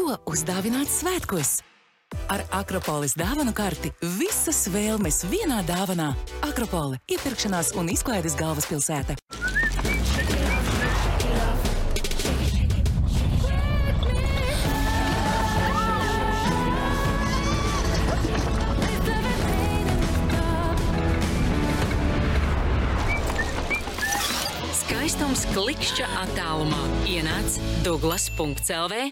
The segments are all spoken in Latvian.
Ko uzdāvināt svētkos? Ar Akropolis dāvanu karti visas vēlmes vienā dāvanā. Akropole – iepirkšanās un izklaides galvaspilsēta. Skaistums klikšķa attālumā. Ienāc Douglas.lv.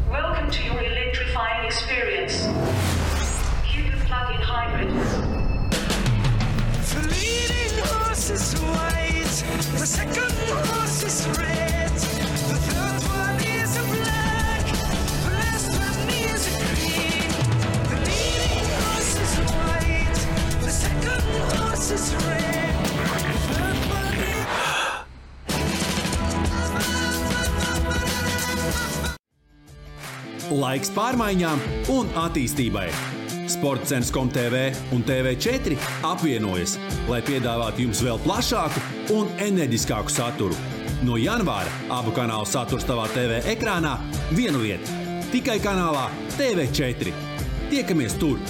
Welcome to your electrifying experience. Cue the plug-in hybrid. The leading horse is white, the second horse is red, the third one is a black, the last one is a green. The leading horse is white, the second horse is red, the third one is... Laiks pārmaiņām un attīstībai. Sportcens.com.tv un TV4 apvienojas, lai piedāvātu jums vēl plašāku un enerģiskāku saturu. No janvāra abu kanālu saturs tavā TV ekrānā vienu vietu. Tikai kanālā TV4. Tiekamies tur!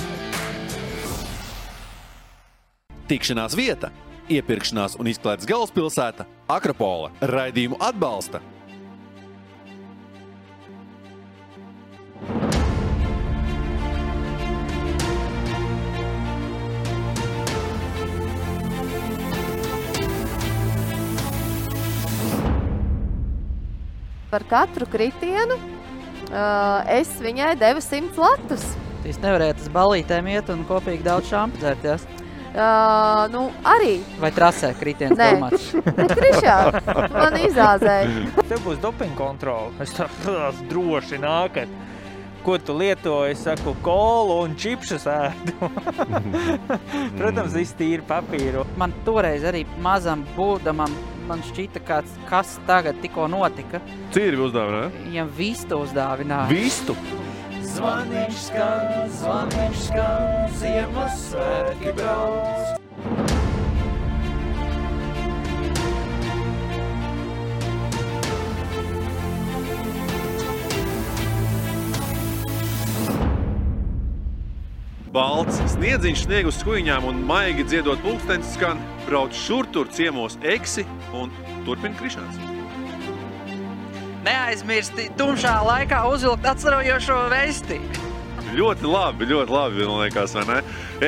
Tikšanās vieta, iepirkšanās un izklaides galvaspilsēta Akropole. Raidījumu atbalsta Par katru kritienu es viņai devu 100 latus. Jūs nevarētu uz balītēm iet un kopīgi daudz šampu dzērties? Nu, arī. Vai trasē kritiens domāts? Nē, Krišā, man izāzēja. Tev būs dopinga kontrola. Es tās droši nākat. Ko tu lieto? Es saku, kolu un čipšus ēdu. Protams, viss tīri papīru. Man toreiz arī mazam būdamam man šķita kāds, kas tagad tikko notika. Cīri uzdāvināja? Viņam vistu uzdāvināja. Vistu? Zvaniņš skan, Ziemassvētki brauc. Balts sniedziņš snieg uz skuiņām un maigi dziedot pulkstenis skan, brauc šur-tur ciemos Eksi un turpina Krišāns. Neaizmirsti tumšā laikā uzvilkt atstarojošo vesti. Ļoti labi, man liekas, vai ne?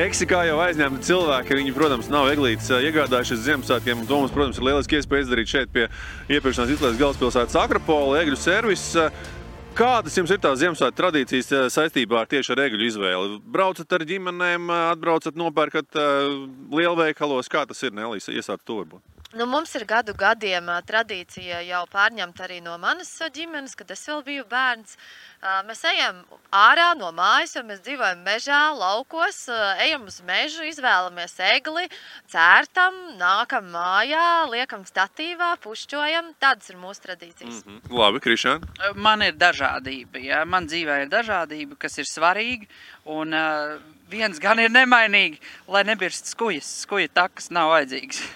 Eksi, kā jau aizņemti cilvēki, viņi, protams, nav eglītes iegādājušies Ziemassvētkiem, un to mums, protams, ir lieliski iespēja izdarīt šeit pie iepirkšanās izklaides galvaspilsētas Akropole, egļu servis. Kādas jums ir tās Ziemassvētku tradīcijas saistībā tieši ar egļu izvēli? Braucat ar ģimenēm, atbraucat, nopērkat lielveikalos? Kā tas ir, Nelīs? Iesāc to varbūt. Nu, mums ir gadu gadiem tradīcija jau pārņemta arī no manas ģimenes, kad es vēl biju bērns. Mēs ejam ārā no mājas, jo mēs dzīvojam mežā, laukos, ejam uz mežu, izvēlamies egli, cērtam, nākam mājā, liekam statīvā, pušķojam. Tādas ir mūsu tradīcijas. Labi, Krišān? Man ir dažādība, ja? Man dzīvē ir dažādība, kas ir svarīga, un viens gan ir nemainīgi, lai nebirst skujas. Skuja takas nav vajadzīgas.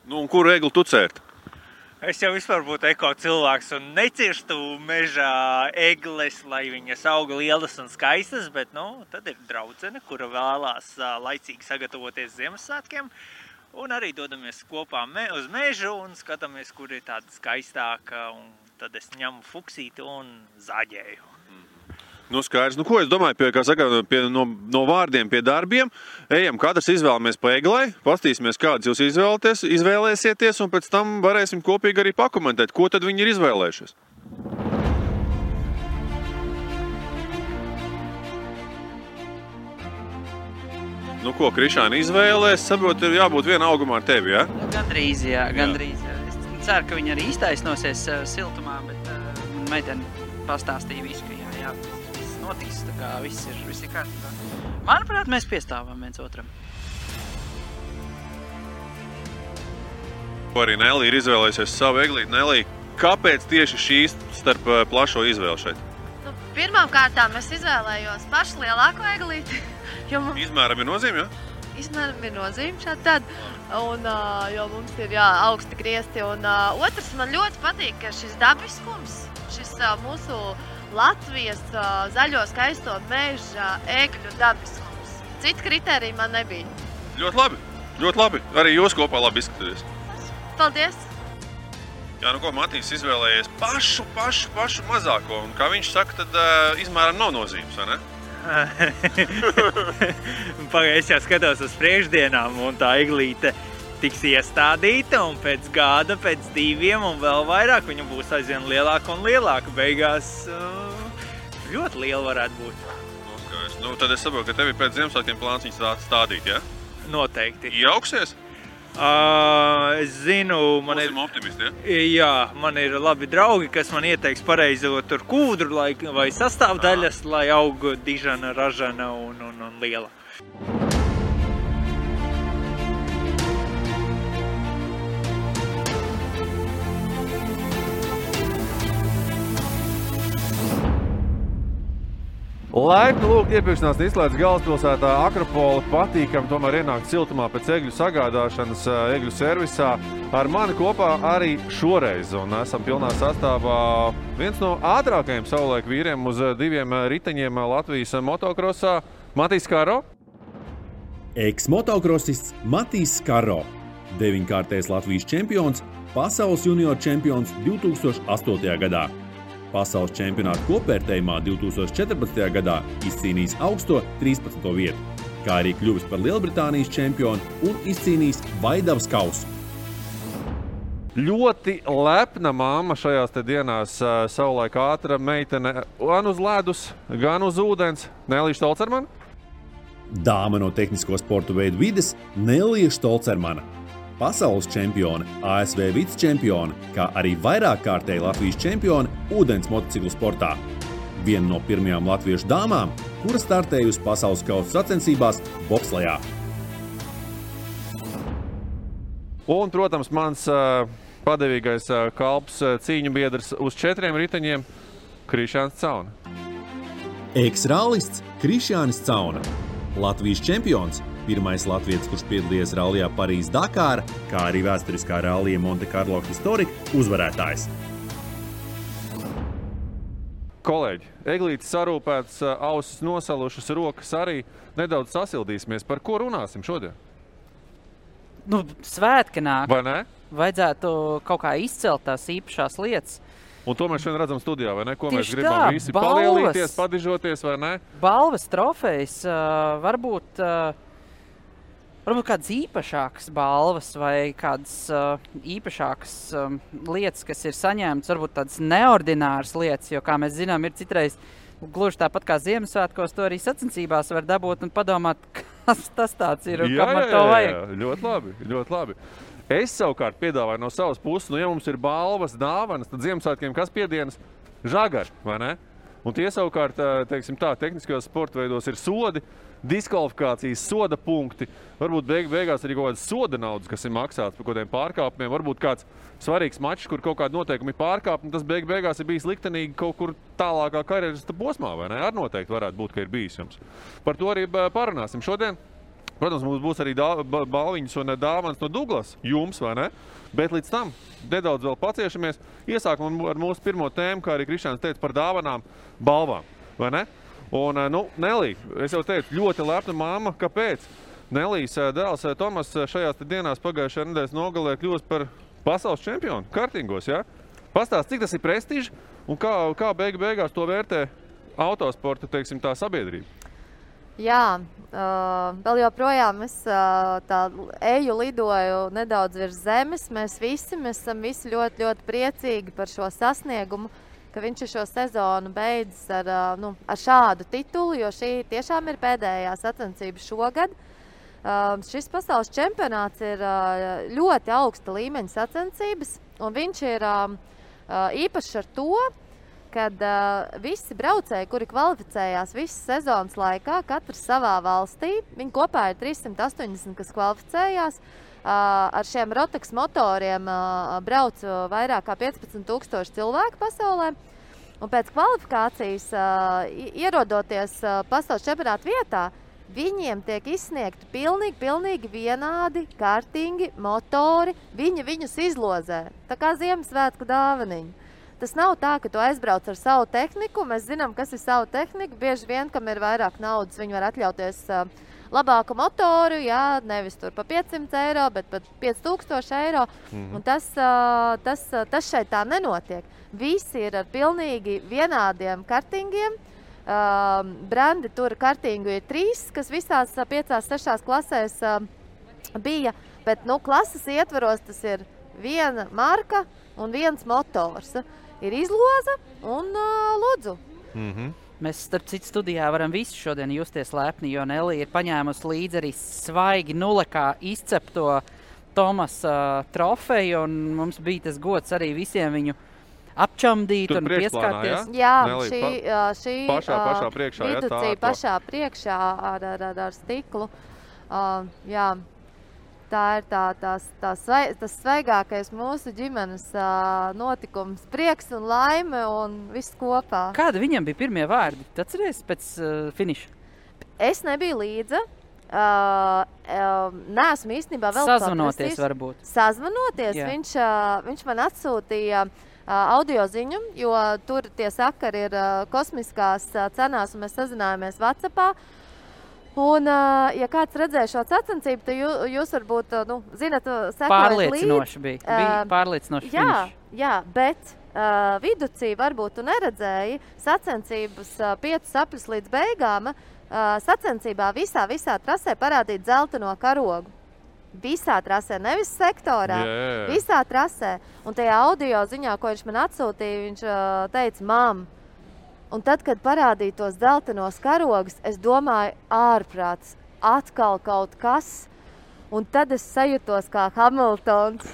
Nu, un kuru egli tu cērt? Es jau vispār būtu eko cilvēks un necirstu mežā egles, lai viņas auga lielas un skaistas, bet, nu, tad ir draudzene, kura vēlās laicīgi sagatavoties Ziemassvētkiem. Un arī dodamies kopā uz mežu un skatāmies, kur ir tāda skaistāka, un tad es ņemu fuksīti un zaģēju. Nu, skaidrs. Nu, ko es domāju, no vārdiem pie darbiem. Ejam, katrs izvēlamies pa eglai, pastīsimies, kādas jūs izvēlēsieties, un pēc tam varēsim kopīgi arī pakomentēt, ko tad viņi ir izvēlējušies. Nu, ko, Krišāna izvēlē? Es saprotu, ir jābūt viena augumā ar tevi, ja? Gandrīz, jā. Es ceru, ka viņi arī iztaisnosies siltumā, bet meiteni pastāstīja visu, ka jā. Notiks, tā kā viss ir kārtībā. Manuprāt, mēs piestāvam viens otram. Ko arī Nelī ir izvēlējusies savu eglīti. Nelī, kāpēc tieši šīs starp plašo izvēli šeit? Nu, pirmām kārtām es izvēlējos pašu lielāko eglīti. Izmēram ir nozīme, jā? Izmēram ir nozīme šādi tad. Un, jo mums ir augsti griesti. Un otrs, man ļoti patīk, ka šis dabiskums, šis mūsu Latvijas zaļo skaisto meža egļu dabiskums. Citu kritēriju man nebija. Ļoti labi, ļoti labi. Arī jūs kopā labi izskatāties. Paldies! Jā, nu ko, Matīs izvēlējies pašu mazāko. Un kā viņš saka, tad izmēram nav nozīmes, vai ne? Es jau skatos uz priekšdienām, un tā eglīte tiks iestādīta, un pēc gada, pēc 2 un vēl vairāk viņa būs aizvien lielāka un lielāka. Beigās ļoti liela varētu būt. Nu, tad es saprotu, ka tev ir pēc Ziemassvētkiem plāns viņas stādīt, ja? Noteikti. Iejauksies? Es zinu, man ir optimisti, ja? Jā, man ir labi draugi, kas man ieteiks pareizo tur kūdru vai sastāvdaļas, lai aug dižana, ražana un liela. Laipni lūgt iepirkšanās izslēdz galvaspilsētā Akropole, patīkam tomēr ienākt siltumā pēc egļu sagādāšanas egļu servisā. Ar mani kopā arī šoreiz, un esam pilnā sastāvā viens no ātrākajiem savulaik vīriem uz 2 riteņiem Latvijas motokrosā – Matīs Skaro. Eks-motokrosists Matīs Skaro, 9-kārtais Latvijas čempions, pasaules junior čempions 2008. gadā. Pasaules čempionāta kopvērtējumā 2014. gadā izcīnījis augsto 13. vietu, kā arī kļuvis par Lielbritānijas čempionu un izcīnījis Vaidavas kausu. Ļoti lepna mamma šajās te dienās, savulaik ātra meitene gan uz ledus, gan uz ūdens. Nelija Štolcermana? Dāma no tehnisko sportu veidu vides Nelija Štolcermana. Pasaules čempione, ASV vicečempione, kā arī vairāk kārtēji Latvijas čempione ūdens motociklu sportā. Viena no pirmajām latviešu dāmām, kura startējusi pasaules kausa sacensībās bobslejā. Un, protams, mans padevīgais kalps cīņu biedrs uz 4 riteņiem Krišjānis Cauna. Eks-rallists Krišjānis Cauna, Latvijas čempions, pirmais latvietis, kurš piedalījies rallijā Parīzes-Dakāra, kā arī vēsturiskā rallija Monte Carlo Historika uzvarētājs. Kolēģi, eglītes sarūpētas, ausis nosalušas, rokas arī. Nedaudz sasildīsimies. Par ko runāsim šodien? Nu, svētki nāk. Vai ne? Vajadzētu kaut kā izcelt tās īpašās lietas. Un to mēs šodien redzam studijā, vai ne? Ko Tieši mēs gribam tā, visi balvas. palielīties, padižoties, vai ne? Balvas, trofejas, varbūt kādas īpašākas balvas vai kādas īpašākas lietas, kas ir saņemtas, varbūt tādas neordināras lietas, jo, kā mēs zinām, ir citreiz gluži tāpat kā Ziemassvētkos, to arī sacensībās var dabūt un padomāt, kas tas tāds ir un kam ar to vajag. Jā, ļoti labi, ļoti labi. Es savukārt piedāvāju no savas puses, ja mums ir balvas, dāvanas, tad Ziemassvētkiem kas piedienas? Žagari, vai ne? Un tie savukārt, teiksim tā, tehniskajos sporta veidos ir sodi, diskvalifikācijas, soda punkti, varbūt beigās arī kaut kādas soda naudas, kas ir maksāts par kaut kādiem pārkāpumiem, varbūt kāds svarīgs mačs, kur kaut kādi noteikumi pārkāpumi, tas beigās ir bijis liktenīgi kaut kur tālākā karjeras posmā, vai ne? Ar noteikti varētu būt, ka ir bijis jums. Par to arī parunāsim šodien. Protams, mums būs arī balviņas un dāvanas no Douglas jums, vai ne? Bet līdz tam nedaudz vēl paciešamies. Iesākam ar mūsu pirmo tēmu, kā arī Krišjāns teica par dāvanām, balvām, vai ne? Un, Nelija, es jau teicu, ļoti lepna mamma. Kāpēc? Nelijas dēls Tomas šajās dienās pagājušajā nedēļas nogalē kļūst par pasaules čempionu kartingos, ja? Pastāst, cik tas ir prestiži un kā beigās to vērtē autosporta, teiksim, tā sabiedrība? Jā, vēl joprojām es tā lidoju nedaudz virs zemes. Mēs esam visi ļoti, ļoti priecīgi par šo sasniegumu, ka viņš ir šo sezonu beidzis ar šādu titulu, jo šī tiešām ir pēdējā sacensība šogad. Šis pasaules čempionāts ir ļoti augsta līmeņa sacensības, un viņš ir īpašs ar to, kad visi braucēji, kuri kvalificējās visas sezonas laikā, katrs savā valstī, viņi kopā ir 380, kas kvalificējās, ar šiem Rotax motoriem brauc vairāk kā 15,000 cilvēku pasaulē. Un pēc kvalifikācijas, ierodoties pasaules čempionāta vietā, viņiem tiek izsniegti pilnīgi vienādi kartingi, motori, viņi viņus izlozē, tā kā Ziemassvētku dāvaniņi. tas nav tā, ka tu aizbrauc ar savu tehniku. Mēs zinām, kas ir savu tehniku. Bieži vien, kam ir vairāk naudas, viņi var atļauties labāku motoru, jā, nevis tur pa 500 eiro, bet pat 5000 eiro. Un tas šeit tā nenotiek. Visi ir ar pilnīgi vienādiem kartingiem. Brandi tur kartingu ir 3, kas visās 5-6 klasēs bija, bet klases ietvaros tas ir viena marka un viens motors. Ir izloze un lūdzu. Mēs, starp citu, studijā varam visi šodien justies lepni, jo Nelija ir paņēmusi līdzi arī svaigi nulekā izcepto Tomasa trofeju, un mums bija tas gods arī visiem viņu apčamdīt un pieskārties. Jā, šī pašā priekšā, viducī pašā priekšā ar stiklu. Jā, tā ir tas svaigākais mūsu ģimenes notikums. Prieks un laime un viss kopā. Kāda viņam bija pirmie vārdi? Tu atceries pēc finiša? Es nebiju līdzi. Neesmu īstenībā vēl Sazvanoties varbūt. Sazvanoties. Viņš man atsūtīja audio ziņu, jo tur tie sakari ir kosmiskās cenās, un mēs sazinājāmies WhatsAppā. Un, ja kāds redzēja šo sacensību, tad jūs varbūt, zinat, sekojat pārliecinoši bija. Bija pārliecinoši finišs. Jā, bet viducī varbūt tu neredzēji sacensības 5 sapļus līdz beigām. Sacensībā visā trasē parādīt zeltaino karogu. Visā trasē, nevis sektorā, visā trasē. Un tajā audio ziņā, ko viņš man atsūtīja, viņš teica, mam. Un tad, kad parādīja tos zeltainos karogus, es domāju, ārprāts, atkal kaut kas. Un tad es sajūtos kā Hamiltons.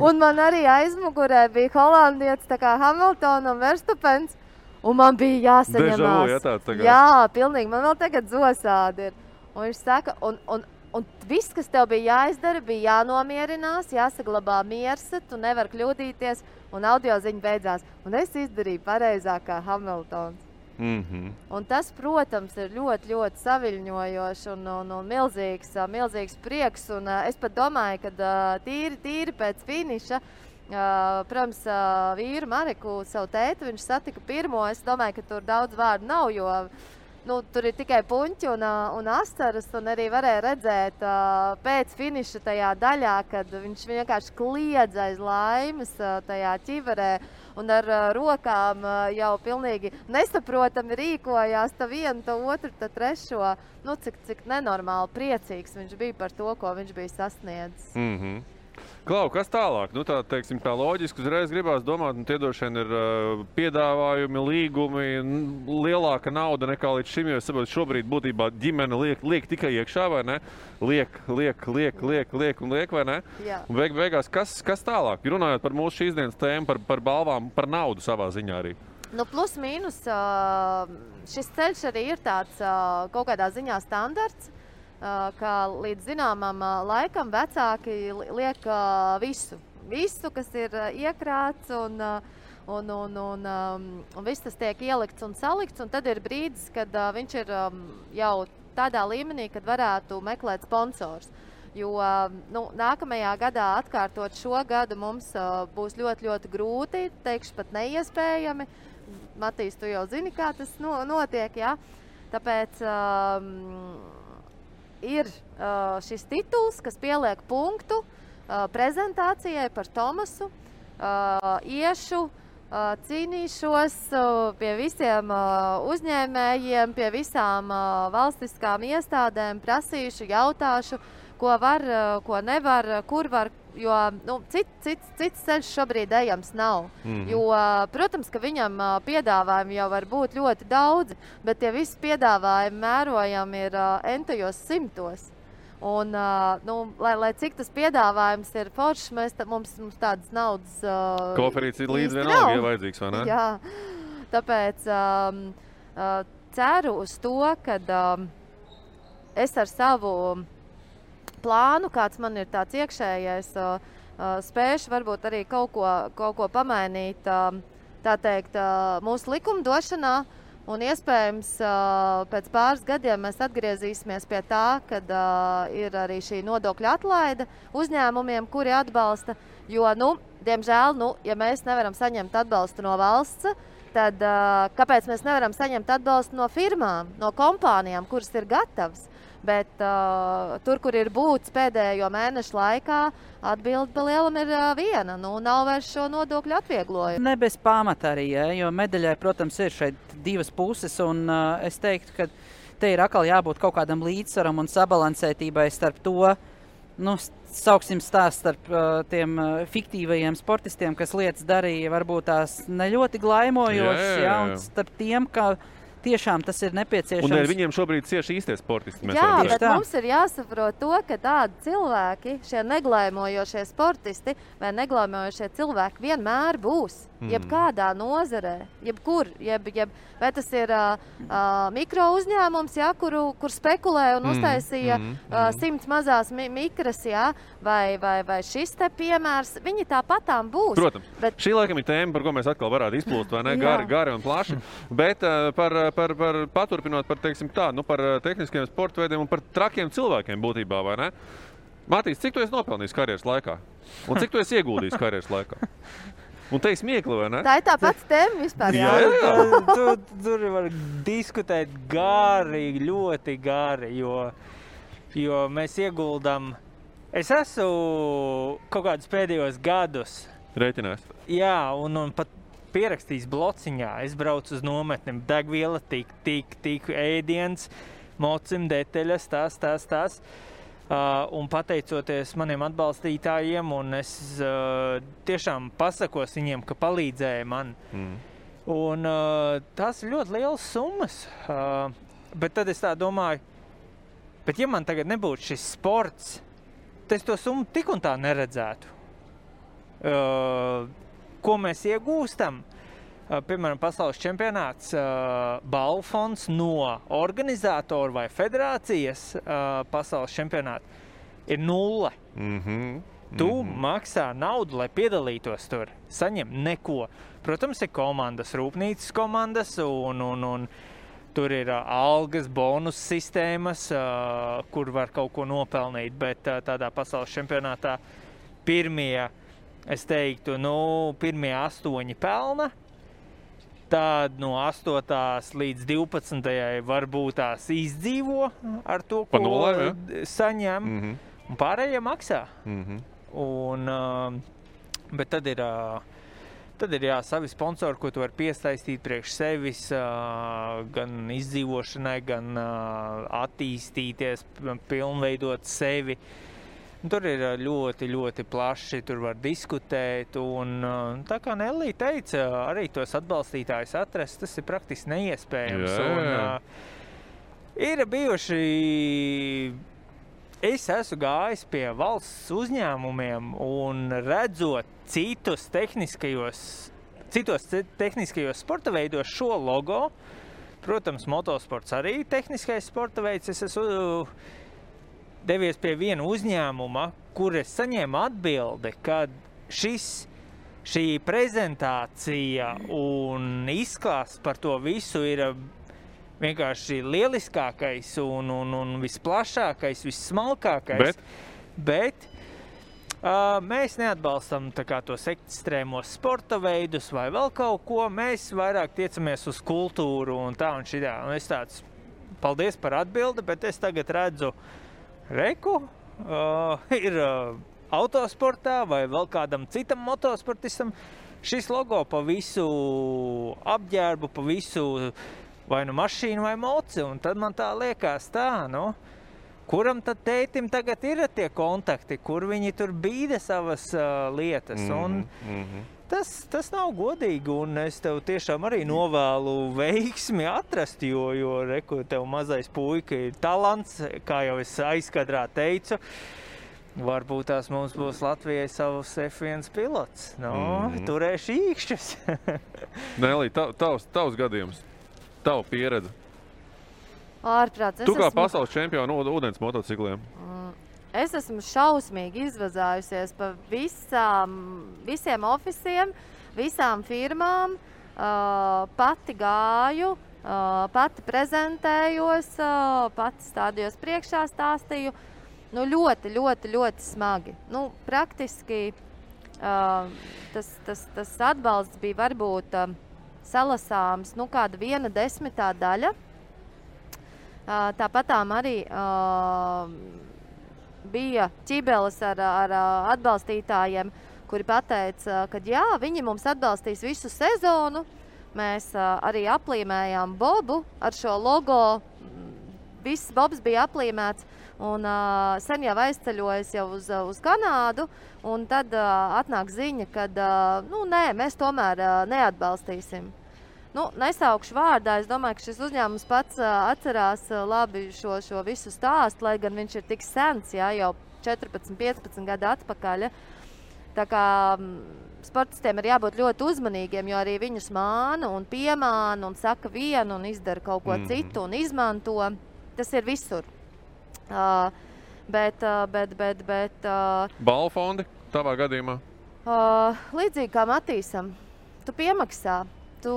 Un man arī aizmugurē bija holandietis, tā kā Hamiltona un Verstapens. Un man bija jāsaņemās. Jā, pilnīgi, man vēl tagad zosādi ir. Un viņš saka, un viss, kas tev bija jāizdara, bija jānomierinās, jāsaglabā miers, tu nevar kļūdīties, un audio ziņa beidzās. Un es izdarīju pareizāk kā Hamiltons. Un tas, protams, ir ļoti, ļoti saviļņojoši un milzīgs prieks. Un es pat domāju, ka tīri pēc finiša, protams, vīru Mareku, savu tētu, viņš satika pirmo. Es domāju, ka tur daudz vārdu nav, jo tur ir tikai puņķi un astaras, un arī varēja redzēt pēc finiša tajā daļā, kad viņš vienkārši kliedz aiz laimes tajā ķiverē un ar rokām jau pilnīgi nesaprotami rīkojās ta vienu, ta otru, ta trešo. Cik nenormāli priecīgs viņš bija par to, ko viņš bija sasniedzis. Klau, kas tālāk? Tā loģiski uzreiz gribās domāt, tie droši vien ir piedāvājumi, līgumi, lielāka nauda nekā līdz šim, jo es saprotu, šobrīd būtībā ģimene liek tikai iekšā, vai ne? Liek, vai ne? Jā. Un beigās, kas tālāk? Runājot par mūsu šīs dienas tēmu, par balvām, par naudu savā ziņā arī. Plus mīnus, šis ceļš arī ir tāds kaut kādā ziņā standarts. Ka līdz zināmam laikam vecāki liek visu, kas ir iekrāts un viss tas tiek ielikts un salikts, un tad ir brīdis, kad viņš ir jau tādā līmenī, kad varētu meklēt sponsors. Jo nākamajā gadā atkārtot šo gadu mums būs ļoti, ļoti grūti, teikšu pat neiespējami. Matīs, tu jau zini, kā tas notiek, jā? Tāpēc ir šis tituls, kas pieliek punktu prezentācijai par Tomasu. Iešu, cīnīšos pie visiem uzņēmējiem, pie visām valstiskām iestādēm, prasīšu, jautāšu, ko var, ko nevar, kur var, jo cits ceļš šobrīd ejams nav. Jo, protams, ka viņam piedāvājumi jau var būt ļoti daudzi, bet tie visi piedāvājumi mērojami ir entajos simtos. Un, lai cik tas piedāvājums ir foršs, mums tādas naudas Koferīts ir līdz vienalga, ja vajadzīgs, vai ne? Jā, tāpēc ceru uz to, ka es ar savu plānu, kāds man ir tāds iekšējais, spēšu varbūt arī kaut ko pamainīt, tā teikt, mūsu likumdošanā Un iespējams, pēc pāris gadiem mēs atgriezīsimies pie tā, kad ir arī šī nodokļa atlaide uzņēmumiem, kuri atbalsta. Jo, diemžēl, ja mēs nevaram saņemt atbalstu no valsts, tad kāpēc mēs nevaram saņemt atbalstu no firmām, no kompānijām, kuras ir gatavas? Bet tur, kur ir būts pēdējo mēnešu laikā, atbilde pa lielam ir viena. Nav vairs šo nodokļu atvieglojumu. Ne bez pamata arī, jo medaļai, protams, ir šeit divas puses, un es teiktu, ka te ir atkal jābūt kaut kādam līdzsvaram un sabalansētībai starp to, sauksim stāst starp tiem fiktīvajiem sportistiem, kas lietas darīja, varbūt tās ne ļoti glaimojošas, un starp tiem, ka tiešām tas ir nepieciešams. Un viņiem šobrīd cieši īstie sportisti. Jā, bet mums ir jāsaprot to, ka tādi cilvēki, šie neglaimojošie sportisti vai neglaimojošie cilvēki vienmēr būs. Jebkādā nozarē, jebkur, vai tas ir mikro uzņēmums, kur spekulē un uztaisīja 100 mazās mikras, vai šis te piemērs, viņi tāpatām būs. Protams, šī laikam ir tēma, par ko mēs atkal varētu izplūst, vai ne? Gari un plaši. Bet paturpinot par, teiksim tā, par tehniskiem sporta veidiem un par trakiem cilvēkiem būtībā, vai ne? Matīs, cik tu esi nopelnījis karjeras laikā? Un cik tu esi ieguldījis karjeras laikā? Un te ir smiekli, vai ne? Tā ir tā pats tēma vispār. Jā. Tur var diskutēt gari, ļoti gari, jo mēs ieguldam. Es esmu kaut kādus pēdējos gadus. Rēķinās. Jā, un pat pierakstījis blociņā. Es braucu uz nometni, degviela, tik ēdiens, mocim, detaļas, tās. Un pateicoties maniem atbalstītājiem, un es tiešām pasakos viņiem, ka palīdzēja man. Un tās ir ļoti lielas summas. Bet tad es tā domāju, bet ja man tagad nebūtu šis sports, tad es to summu tik un tā neredzētu. Ko mēs iegūstam? Piemēram, pasaules čempionāts, balvu fonds no organizātora vai federācijas pasaules čempionāta ir 0. Tu maksā naudu, lai piedalītos tur, saņem neko. Protams, ir komandas, rūpnīcas komandas, un tur ir algas, bonus sistēmas, kur var kaut ko nopelnīt, bet tādā pasaules čempionātā pirmie, es teiktu, pirmie 8 pelna. Tad no 8. līdz 12. varbūt tās izdzīvo ar to, ko saņem, un pārējie maksā. Bet tad ir savi sponsori, ko tu vari piesaistīt priekš sevis, gan izdzīvošanai, gan attīstīties, pilnveidot sevi. Tur ir ļoti, ļoti plaši, tur var diskutēt, un tā kā Nellī teica, arī tos atbalstītājus atrast, tas ir praktiski neiespējams. Ir bijuši, es esmu gājis pie valsts uzņēmumiem un redzot citos tehniskajos sporta veidos šo logo, protams, motosports arī tehniskais sporta veids, es esmu devies pie viena uzņēmuma, kur es saņēmu atbildi, ka šī prezentācija un izklāsts par to visu ir vienkārši lieliskākais un visplašākais, vissmalkākais. Bet mēs neatbalstam tos ekstrēmos sporta veidus vai vēl kaut ko. Mēs vairāk tiecamies uz kultūru un tā un šitā. Un es tāds, paldies par atbildi, bet es tagad redzu, ir autosportā vai vēl kādam citam motosportistam šis logo pa visu apģērbu, pa visu vai mašīnu vai moci, un tad man tā liekas kuram tad tētim tagad ir tie kontakti, kur viņi tur bīda savas lietas, un tas nav godīgi, un es tev tiešām arī novēlu veiksmi atrast, jo tev mazais puika ir talants, kā jau es aizkadrā teicu, varbūt tās mums būs Latvijai savs F1 pilots. Turēšu īkšķus. Nellī, tavs gadījums, tava pieredze. Ārprāts. Tu kā pasaules čempionu ūdens motocikliem? Es esmu šausmīgi izvazājusies pa visiem ofisiem, visām firmām. Pati gāju, pati prezentējos, pati stādījos priekšā, stāstīju. Nu, ļoti, ļoti, ļoti smagi. Nu, praktiski tas atbalsts bija varbūt salasāms, nu, kāda 1/10 daļa. Tāpatām arī bija ķibeles ar atbalstītājiem, kuri pateica, ka jā, viņi mums atbalstīs visu sezonu. Mēs arī aplīmējām bobu ar šo logo. Viss bobs bija aplīmēts. Un sen jau aizceļojas jau uz Kanādu, un tad atnāk ziņa, ka nē, mēs tomēr neatbalstīsim. Nu, nesaukšu vārdā, es domāju, ka šis uzņēmums pats atcerās labi šo visu stāstu, lai gan viņš ir tik sens, jā, jau 14-15 gadu atpakaļ. Tā kā sportistiem ir jābūt ļoti uzmanīgiem, jo arī viņus māna un piemāna un saka vienu un izdara kaut ko citu un izmanto. Tas ir visur. Bet Balvu fondi tavā gadījumā? Līdzīgi kā Matīsam, tu piemaksā. Tu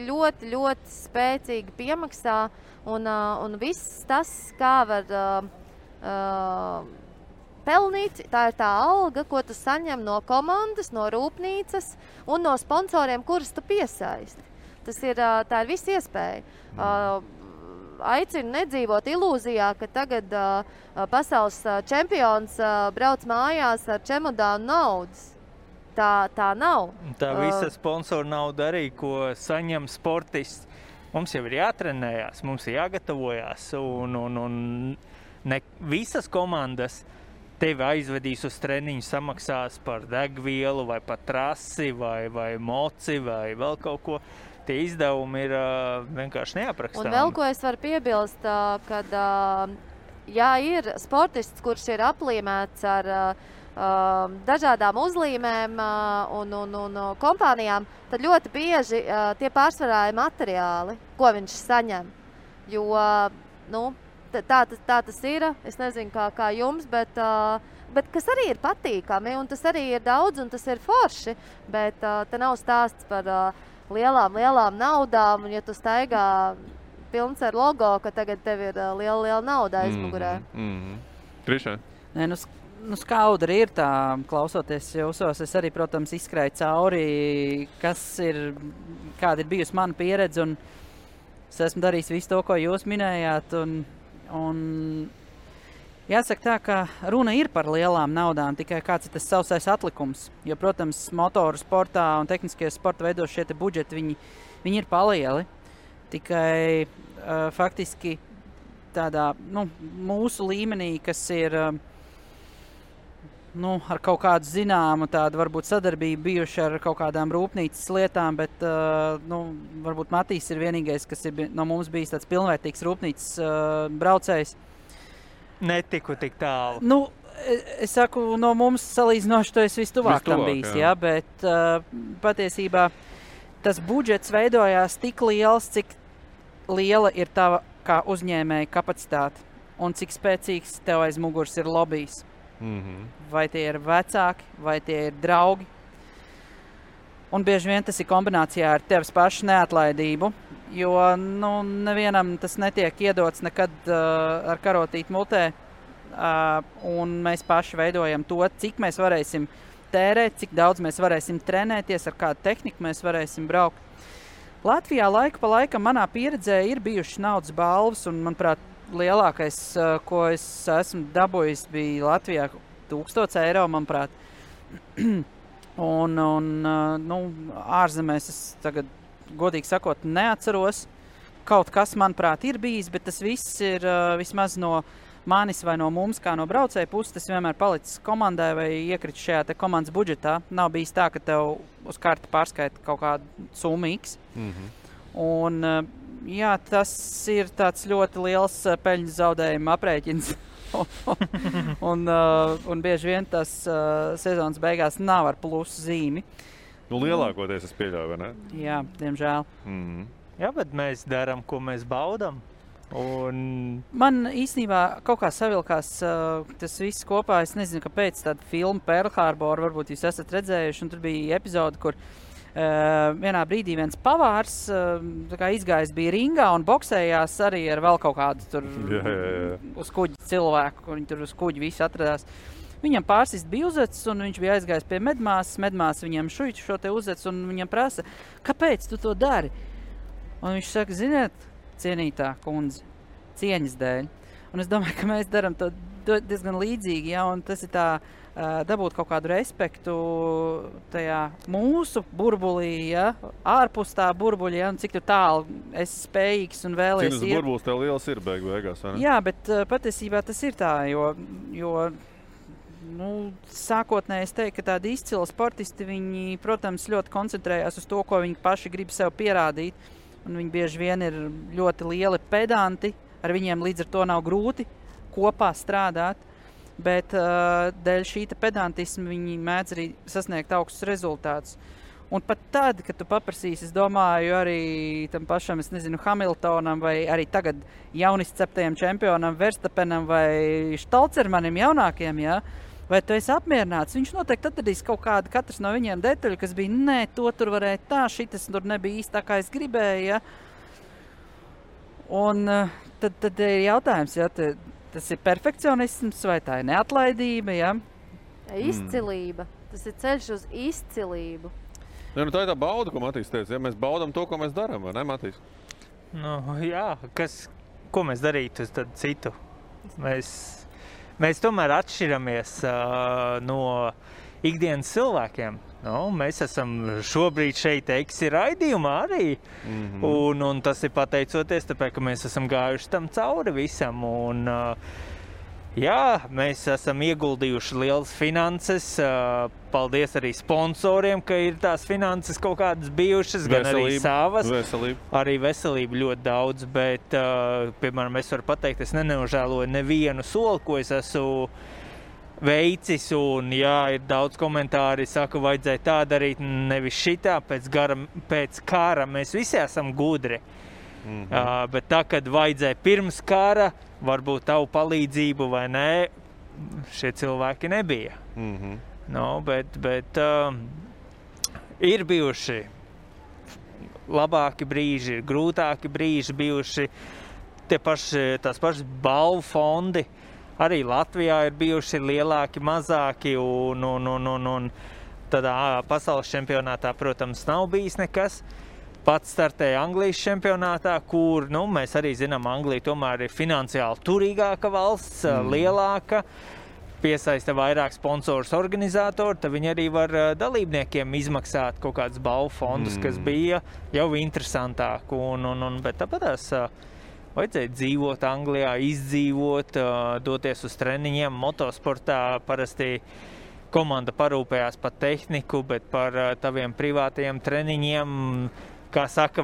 ļoti, ļoti spēcīgi piemaksā un viss tas, kā var pelnīt, tā ir tā alga, ko tu saņem no komandas, no rūpnīcas un no sponsoriem, kurus tu piesaisti. Tā ir viss iespēja. Aicinu nedzīvot ilūzijā, ka tagad pasaules čempions brauc mājās ar čemodānu naudas. Tā nav. Tā visa sponsora nauda arī, ko saņem sportists. Mums jau ir jātrenējās, mums ir jāgatavojās, un ne visas komandas tevi aizvedīs uz treniņu, samaksās par degvielu, vai par trasi, vai moci, vai vēl kaut ko. Tie izdevumi ir vienkārši neaprakstāmi. Un vēl ko es varu piebilst, kad ja ir sportists, kurš ir aplīmēts ar dažādām uzlīmēm un kompānijām, tad ļoti bieži tie pārsvarā ir materiāli, ko viņš saņem. Jo, nu, tā tas ir, es nezinu kā jums, bet kas arī ir patīkami, un tas arī ir daudz, un tas ir forši, bet te nav stāsts par lielām naudām, un ja tu staigā pilns ar logo, ka tagad tev ir liela nauda aizmugurē. Trišā? Nē, nu skaudri ir tā, klausoties jūsos, es arī, protams, izskrēju cauri, kāda ir bijusi mana pieredze, un es esmu darījis visu to, ko jūs minējāt, un jāsaka tā, ka runa ir par lielām naudām, tikai kāds ir tas sausais atlikums, jo, protams, motoru sportā un tehniskie sporta veidos šie te budžeti, viņi ir palieli, tikai faktiski tādā, nu, mūsu līmenī, kas ir ar kaut kādu zināmu tādu varbūt sadarbību bijuši ar kaut kādām rūpnīcas lietām, bet varbūt Matīs ir vienīgais, kas ir no mums bijis tāds pilnvērtīgs rūpnīcas braucējs. Netiku tik tālu. Nu, es saku, no mums salīdzinoši to es vistuvāk tam bijis, jā, bet patiesībā tas budžets veidojās tik liels, cik liela ir tava kā uzņēmēja kapacitāte un cik spēcīgs tev aiz muguras ir lobijs. Vai tie ir vecāki, vai tie ir draugi. Un bieži vien tas ir kombinācijā ar tevis pašu neatlaidību, jo nevienam tas netiek iedots nekad ar karotīti mutē. Un mēs paši veidojam to, cik mēs varēsim tērēt, cik daudz mēs varēsim trenēties, ar kādu tehniku mēs varēsim braukt. Latvijā laiku pa laikam manā pieredzē ir bijušas naudas balvas, un, manuprāt, lielākais, ko es esmu dabūjis, bija Latvijā 1000 eiro, manuprāt. un ārzemēs es tagad, godīgi sakot, neatceros. Kaut kas, manuprāt, ir bijis, bet tas viss ir vismaz no manis vai no mums, kā no braucēja puses, tas vienmēr palicis komandai vai iekrit šajā te komandas budžetā. Nav bijis tā, ka tev uz karti pārskaita kaut kādu summu X. Un, jā, tas ir tāds ļoti liels peļņas zaudējuma aprēķins. un bieži vien tas sezonas beigās nav ar plusu zīmi. Nu, lielākoties es pieļauju, vai ne? Jā, diemžēl. Jā, bet mēs darām, ko mēs baudam. Man īstenībā kaut kā savilkās tas viss kopā. Es nezinu, kāpēc tāda filma Pearl Harbor, varbūt jūs esat redzējuši, un tur bija epizode, kur vienā brīdī viens pavārs tā kā izgājis bija ringā un boksējās arī ar vēl kaut kādu tur uz kuģi cilvēku, kur viņi tur uz kuģi visi atradās. Viņam pārsist bija uzecis, un viņš bija aizgājis pie medmāsas. Medmāsa viņam šuiķu šo te uzecis, un viņam prasa, kāpēc tu to dari? Un viņš saka, ziniet, cienītā kundze, cieņas dēļ. Un es domāju, ka mēs daram to diezgan līdzīgi, ja, un tas ir tā dabūt kaut kādu respektu tajā mūsu burbulī, ja, ārpus tā burbuļa, ja, un cik tu tālu esi spējīgs un vēlies Cik burbulis tev liels ir beigās, vai ne? Jā, bet patiesībā tas ir tā, jo sākotnēji es teiktu, ka tādi izcili sportisti, viņi, protams, ļoti koncentrējās uz to, ko viņi paši grib sev pierādīt, un viņi bieži vien ir ļoti lieli pedanti, ar viņiem līdz ar to nav grūti kopā strādāt, bet dēļ šīta pedantisma viņi mēdz arī sasniegt augstus rezultātus. Un pat tad, kad tu paprasīsi, es domāju, arī tam pašam, es nezinu, Hamiltonam vai arī tagad jaunisceptajam čempionam Verstapenam vai Štalcermanim jaunākiem, ja, vai tu esi apmierināts? Viņš noteikti atradīs kaut kādu, katrs no viņiem detaļu, kas bija, nē, to tur varēja tā, šitas tur nebija īsti tā, kā es gribēju, ja. Un tad ir jautājums, ja, tas ir perfekcionisms vai tā ir neatlaidība, ja? Izcilība. Tas ir ceļš uz izcilību. Ja, tā ir tā bauda, ko Matīs teica, ja mēs baudam to, ko mēs darām, vai ne, Matīs? Jā, ko mēs darītu tad citu? Mēs tomēr atšķiramies no ikdienas cilvēkiem. Mēs esam šobrīd šeit Eksi raidījumā arī, un tas ir pateicoties, tāpēc, ka mēs esam gājuši tam cauri visam, un jā, mēs esam ieguldījuši lielas finanses, paldies arī sponsoriem, ka ir tās finanses kaut kādas bijušas, gan arī savas. Arī veselība ļoti daudz, bet, piemēram, es varu pateikt, es nenožēloju nevienu soli, ko es esmu veicis, un jā, ir daudz komentāri, saka, vajadzēja tā darīt, nevis šitā, pēc kara mēs visi esam gudri. Bet tā, kad vajadzēja pirms kara, varbūt tavu palīdzību vai nē, šie cilvēki nebija. Bet ir bijuši labāki brīži, ir grūtāki brīži bijuši, tās pašas balvu fondi. Arī Latvijā ir bijuši lielāki, mazāki, un tādā pasaules čempionātā, protams, nav bijis nekas. Pats startēja Anglijas čempionātā, kur, mēs arī zinām, Anglija tomēr ir finansiāli turīgāka valsts, lielāka, piesaista vairāk sponsorus organizatori, tad viņi arī var dalībniekiem izmaksāt kaut kādus balvu fondus, kas bija jau interesantāk, bet tāpatās vajadzēja dzīvot Anglijā, izdzīvot, doties uz treniņiem. Motosportā parasti komanda parūpējās par tehniku, bet par taviem privātajiem treniņiem, kā saka,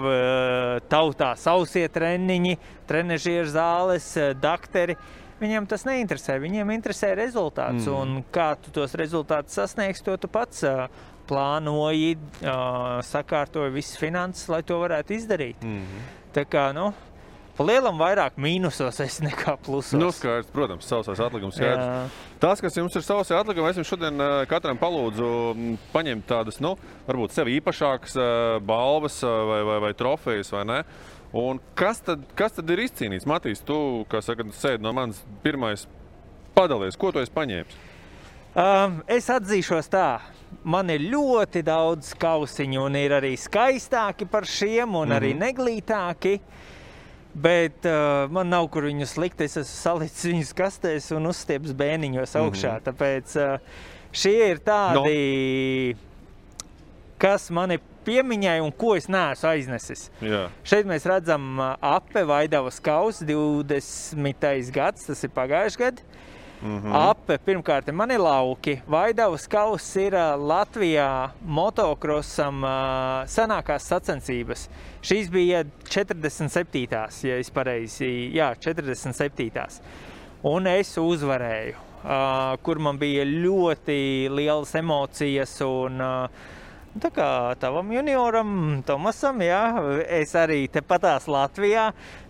tautā sausie treniņi, trenežieru zāles, dakteri. Viņiem tas neinteresē, viņiem interesē rezultāts, un kā tu tos rezultātus sasniegsi, to tu pats plānoji, sakārtoji visas finanses, lai to varētu izdarīt. Tā kā, pa lielam vairāk mīnusos esi nekā plusos. Skaidrs, protams, sausais atlikums skaidrs. Tas, kas jums ir sausai atlikumi, es jums šodien katram palūdzu paņemt tādas, varbūt sev īpašākas balvas vai trofejas, vai ne? Un kas tad ir izcīnīts? Matīs, tu, kā saka, sēdi no manis pirmais padalies. Ko tu esi paņēmis? Es atzīšos tā. Man ir ļoti daudz kausiņu, un ir arī skaistāki par šiem, un arī neglītāki. Bet man nav, kur viņus likt, es esmu salicis viņus kastēs un uzstieps bēniņos augšā, tāpēc šie ir tādi, kas mani piemiņai un ko es neesmu aiznesis. Jā. Šeit mēs redzam Ape Vaidavas kausu, 20. gads, tas ir pagājuši gadi. Ape, pirmkārt, man ir lauki. Vaidavas kauss ir Latvijā motokrosam senākās sacensības. Šīs bija 47. Ja es pareizi, 47. Un es uzvarēju, kur man bija ļoti lielas emocijas un tā kā tavam junioram, Tomasam, es arī tepatās Latvijā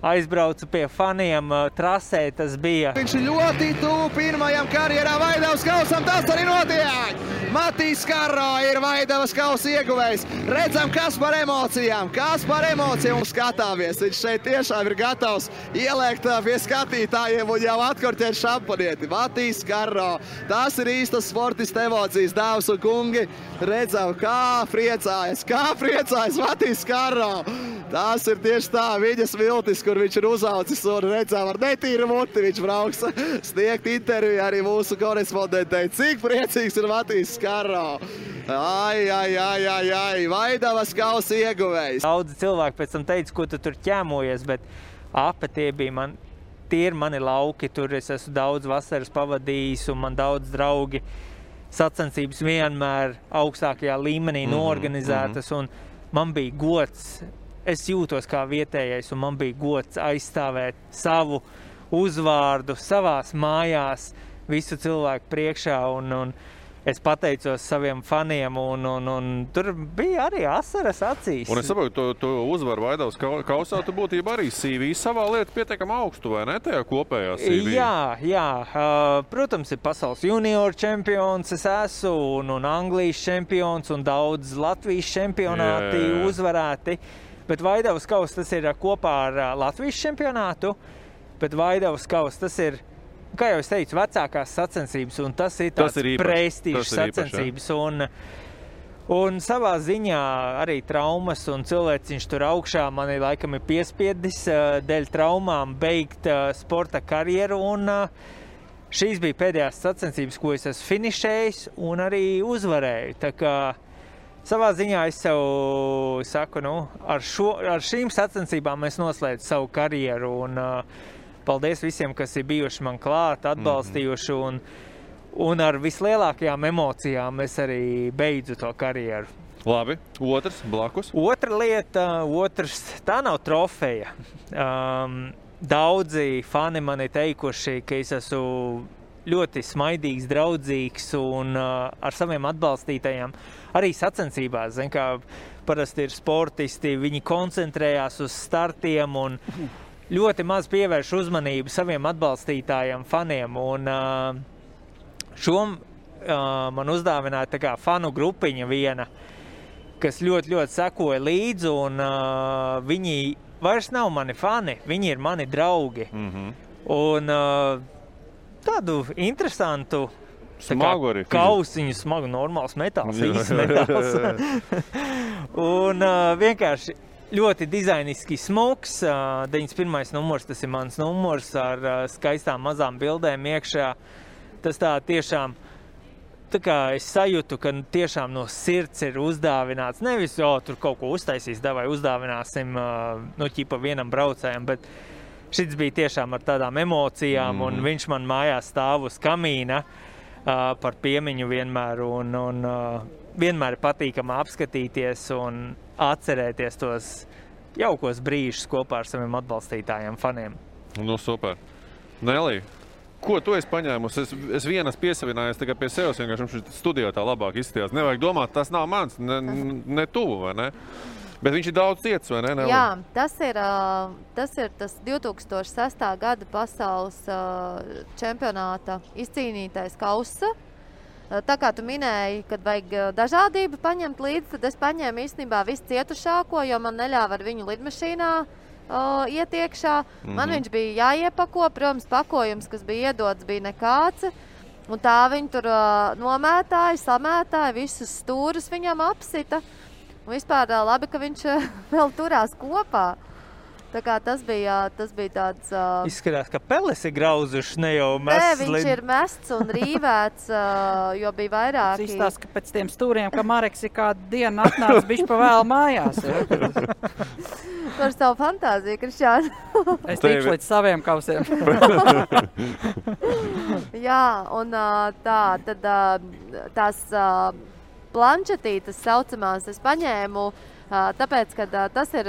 aizbraucu pie faniem trasē, tas bija. Viņš ļoti tuvu pirmajam karjerā Vaidavas kausam, tas arī notiek! Matīs Karro ir Vaidavas kausa ieguvējs. Redzam, kas par emocijām mums skatāmies. Viņš šeit tiešām ir gatavs ieliekt pie skatītājiem un jau atkorķēt šampanieti. Matīs Karro, tas ir īstas sportista emocijas, dāvas un kungi. Redzam, kā priecājas Matīs Karro. Tas ir tieši tā, viņas viltis, kur viņš ir uzaucis un redzam ar netīru muti. Viņš brauks sniegt interviju arī mūsu korespondentei. Cik priecīgs ir Matīs Karro. Ai, Vaidavas kausa ieguvējs. Daudzi cilvēki pēc tam teica, ko tu tur ķēmojies, bet tie ir mani lauki. Tur es esmu daudz vasaras pavadījis un man daudz draugi sacensības vienmēr augstākajā līmenī noorganizētas. Un man bija gods. Es jūtos kā vietējais, un man bija gods aizstāvēt savu uzvārdu savās mājās, visu cilvēku priekšā, un es pateicos saviem faniem, un tur bija arī asaras acīs. Un es saprotu, tu uzvaru Vaidavas kausā, tu būtībā arī CV savā lieta pietiekam augstu, vai ne, tajā kopējā CV? Jā. Protams, ir pasaules junioru čempions, es esmu, un Anglijas čempions, un daudz Latvijas čempionāti uzvarēti. Bet Vaidavas kausa tas ir kopā ar Latvijas čempionātu, bet Vaidavas kausa tas ir, kā jau es teicu, vecākās sacensības, un tas ir tāds prestižs sacensības. Un savā ziņā arī traumas un cilvēciņš tur augšā mani laikam ir piespiedis dēļ traumām beigt sporta karjeru, un šīs bija pēdējās sacensības, ko es esmu finišējis un arī uzvarēju. Tā kā savā ziņā es sev saku, ar šīm sacensībām es noslēdzu savu karjeru, un paldies visiem, kas ir bijuši man klāt, atbalstījuši, un ar vislielākajām emocijām es arī beidzu to karjeru. Labi, otrs, blakus? Otra lieta, tā nav trofeja. Daudzi fani man ir teikuši, ka es esmu ļoti smaidīgs, draudzīgs un ar saviem atbalstītajiem arī sacensībās. Zin, kā parasti ir sportisti, viņi koncentrējās uz startiem un ļoti maz pievērš uzmanību saviem atbalstītājiem, faniem. Un man uzdāvināja tā kā fanu grupiņa viena, kas ļoti sekoja līdzi, un viņi vairs nav mani fani, viņi ir mani draugi. Un tādu interesantu kausiņu, smagu, normāls metāls, īsts metāls. Un vienkārši ļoti dizainiski smuks. 91. numurs, tas ir mans numurs ar skaistām mazām bildēm iekšā. Tas tā tiešām, tā kā es sajūtu, ka tiešām no sirds ir uzdāvināts. Nevis, tur kaut ko uztaisīs, davai uzdāvināsim, ķipa vienam braucējam, bet šis bija tiešām ar tādām emocijām, un viņš man mājās stāv uz kamīna par piemiņu vienmēr, un vienmēr ir patīkami apskatīties un atcerēties tos jaukos brīžus kopā ar saviem atbalstītājiem, faniem. Super. Nelī, ko tu esi paņēmusi? Es vienas piesavinājies tikai pie sevis, vienkārši studijā tā labāk izskatījās. Nevajag domāt, tas nav mans, ne tuvu, vai ne? Bet viņš ir daudz ciets, vai ne? Jā, tas ir tas 2006. gada pasaules čempionāta izcīnītais kausa. Tā kā tu minēji, kad vajag dažādību paņemt līdzi, tad es paņēmu īstenībā visu cietušāko, jo man neļāva ar viņu lidmašīnā iet iekšā. Man viņš bija jāiepako, protams, pakojums, kas bija iedots, bija nekāds. Un tā viņi tur nomētāja, samētāja, visus stūrus viņam apsita. Un vispār labi, ka viņš vēl turās kopā. Tā kā tas bija tāds... Izskatās, ka peles ir grauzuši, ne jau mests. Nē, viņš ir mests un rīvēts, jo bija vairāki. Tas izstāsta, ka pēc tiem stūriem, ka Mareks ir kādu dienu atnācis bišķi pa vēl mājās. Par savu fantāziju, Krišjāni. Es tikšu līdz saviem kausiem. Jā, un tās planšetītes saucamās es paņēmu, tāpēc, ka tas ir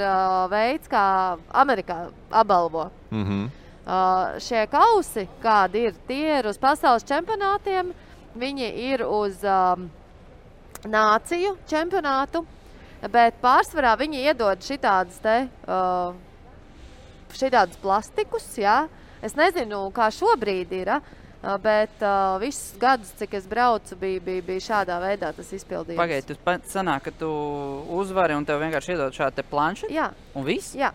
veids, kā Amerikā apbalvo. Šie kausi, kādi ir, tie ir uz pasaules čempionātiem, viņi ir uz nāciju čempionātu, bet pārsvarā viņi iedod šitādus plastikus, jā. Es nezinu, kā šobrīd ir, Bet visus gadus, cik es braucu, bija šādā veidā tas izpildījums. Pagaid, tu sanāk, ka tu uzvari un tev vienkārši iedod šādu te planšetu? Jā. Un viss? Jā.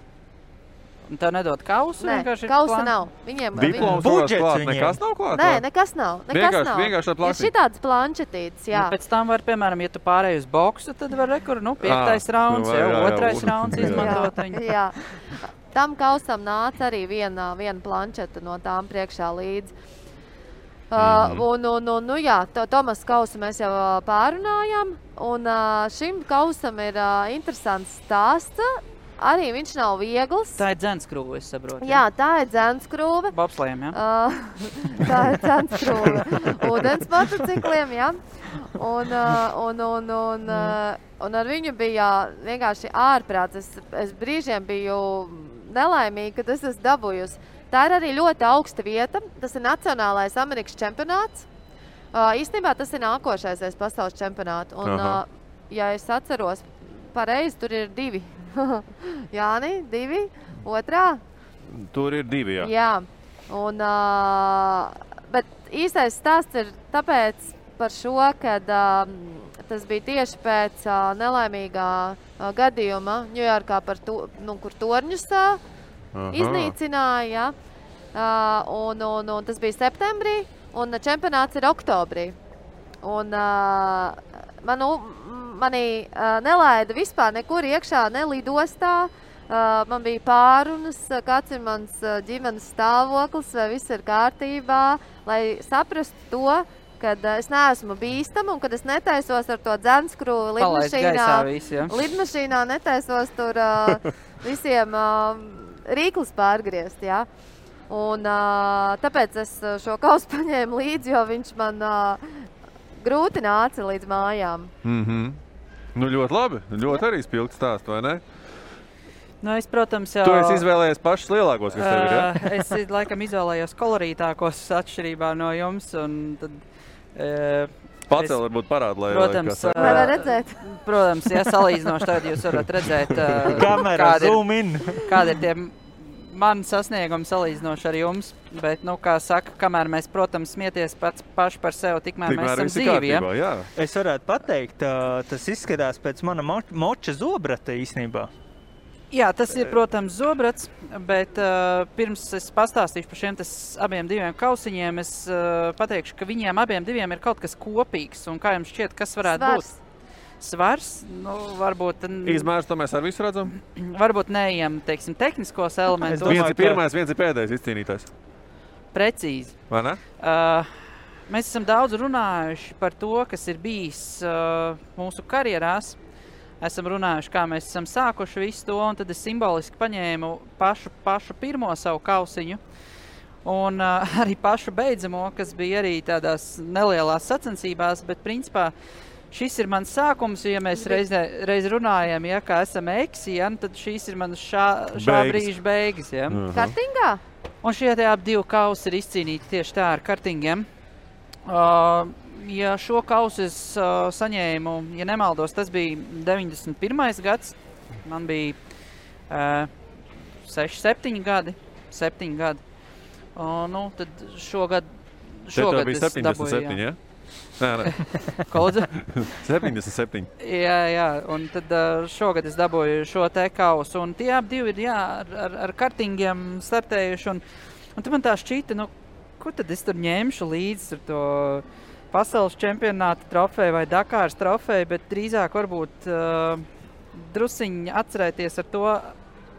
Un tev nedod kausu? Nē, kausa nav. Viņiem Diploms budžets klāt, viņiem. nekas nav klāt? Nē, nekas nav. Vienkārši ar Ir plastiku. šitāds planšetītes, jā. Un pēc tam var, piemēram, ja tu pārēji uz boksu, tad var rekur, 5. rauns, jā, jā. 2. rauns izmantot viņu. Jā. Tam kausam nāca arī viena planšeta no tām priekšā līdzi. Jā, Tomas kausu mēs jau pārunājam, un šim kausam ir interesants stāsts. Arī viņš nav viegls. Tā ir dzenskrūve, es saprotu. Jā, tā ir dzenskrūve. Bobslējiem, jā? Tā ir dzenskrūve. Ūdens motocikliem, jā. Un ar viņu bija vienkārši ārprāts. Es brīžiem biju nelaimīga, kad es esmu dabūjusi. Tā ir arī ļoti augsta vieta. Tas ir Nacionālais Amerikas čempionāts. Īstenībā tas ir nākošais pasaules čempionāts. Un, ja es atceros pareizi, tur ir 2. Jāni, 2, otrā? Tur ir 2, jā. Jā. Bet īstais stāsts ir tāpēc par šo, kad tas bija tieši pēc nelaimīgā gadījuma Ņujorkā, kur torņus iznīcināja. Un tas bija septembrī, un čempionāts ir oktobrī. Un mani nelaida vispār nekur iekšā, ne lidostā. Man bija pārunas, kāds ir mans ģimenes stāvoklis, vai viss ir kārtībā, lai saprastu to, kad es neesmu bīstama un kad es netaisos ar to dzenskrūvi lidmašīnā, netaisos tur visiem rīklus pārgriezt, jā. Un tāpēc es šo kausu paņēmu līdzi, jo viņš man grūti nāca līdz mājām. Nu, ļoti labi. Ļoti arī spilgts stāsts, vai ne? Nu, es, protams, jau... Tu esi izvēlējies pašus lielākos, kas tev ir, ja? Es laikam izvēlējos kolorītākos atšķirībā no jums, un tad... Pacēl varbūt parāda, lai... Protams, var redzēt. Protams, ja salīdzinoši tad jūs varat redzēt, Kamera, zoom in. Kādi ir tie mani sasniegumi salīdzinoši ar jums, bet, kā saka, kamēr mēs, protams, smieties paši par sevi, tikmēr mēs esam dzīvi, ja? Es varētu pateikt, tas izskatās pēc mana moča zobrata īstenībā. Jā, tas ir, protams, zobrats, bet pirms es pastāstīšu par šiem abiem 2 kausiņiem, es pateikšu, ka viņiem abiem 2 ir kaut kas kopīgs, un kā jums šķiet, kas varētu būt? Svars, varbūt... Izmērs, to mēs ar visu redzam? Varbūt neejam, teiksim, tehniskos elementus. Viens ir pirmais, viens ir pēdējais izcīnītājs. Precīzi. Vai ne? Mēs esam daudz runājuši par to, kas ir bijis mūsu karjerās. Esam runājuši, kā mēs esam sākuši visu to, un tad es simboliski paņēmu pašu pirmo savu kausiņu. Un arī pašu beidzamo, kas bija arī tādās nelielās sacensībās, bet principā šis ir mans sākums, ja mēs reiz runājam, ja, kā esam eksi, ja, tad šīs ir manas šā brīža beigas. Ja. Kartingā? Un šie abi 2 kausi ir izcīnīti tieši tā ar kartingiem. Ja šo kausu es saņēmu, ja nemaldos, tas bija 91. gads. Man bija 7 gadi. Tad šogad bija 77, ja? Nē. Ko lūdzu? 77. Jā, un tad šogad es dabūju šo te kausu, un tie abi 2 ir, ar kartingiem startējuši, un tad man tā šķita, ko tad es tur ņemšu līdzi ar to pasaules čempionāta trofeju vai Dakāras trofeju, bet drīzāk varbūt drusiņi atcerēties ar to,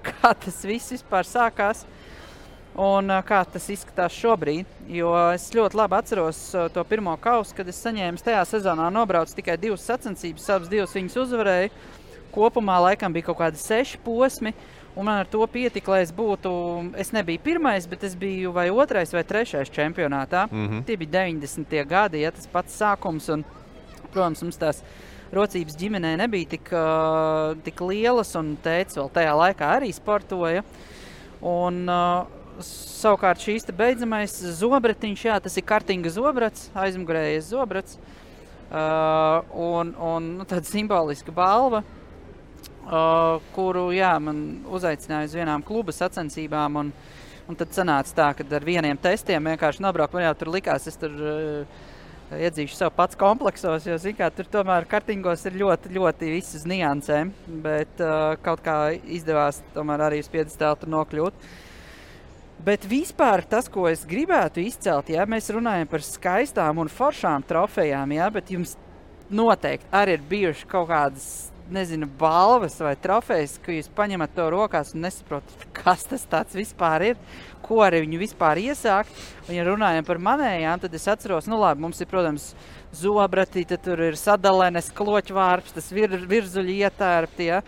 kā tas viss vispār sākās. Un kā tas izskatās šobrīd, jo es ļoti labi atceros to pirmo kausu, kad es saņēmu tajā sezonā nobraucu tikai 2 sacensības, abas 2 viņas uzvarēju. Kopumā laikam bija kaut kādi 6 posmi, un man ar to pietika, lai es nebiju pirmais, bet es biju vai 2. vai 3. čempionātā. Tie bija 90. gadi, ja tas pats sākums, un, protams, mums tās rocības ģimenē nebija tik lielas, un tētis vēl tajā laikā arī sportoja. Un savukārt šīs te beidzamais zobratiņš, jā, tas ir kartinga zobrats, aizmugurējies zobrats, un tāda simboliska balva, kuru, jā, man uzaicināja uz vienām kluba sacensībām, un Un tad sanāca tā, ka ar vieniem testiem vienkārši nobraukt. Man jau tur likās, es tur iedzīšu sev pats kompleksos, jo, zin kā, tur tomēr kartingos ir ļoti, ļoti viss uz niansēm. Bet kaut kā izdevās tomēr arī uz piedestālu tur nokļūt. Bet vispār tas, ko es gribētu izcelt, ja mēs runājam par skaistām un foršām trofejām, ja, bet jums noteikti arī ir bijuši kaut kādas, nezinu, balvas vai trofejas, ka jūs paņemat to rokās un nesaprotat, kas tas tāds vispār ir, ko ar viņu vispār iesākt. Un, ja runājam par manējām, tad es atceros, nu labi, mums ir, protams, zobrati, tad tur ir sadalenes, kloķvārps, tas virzuļi ietērpti, ja,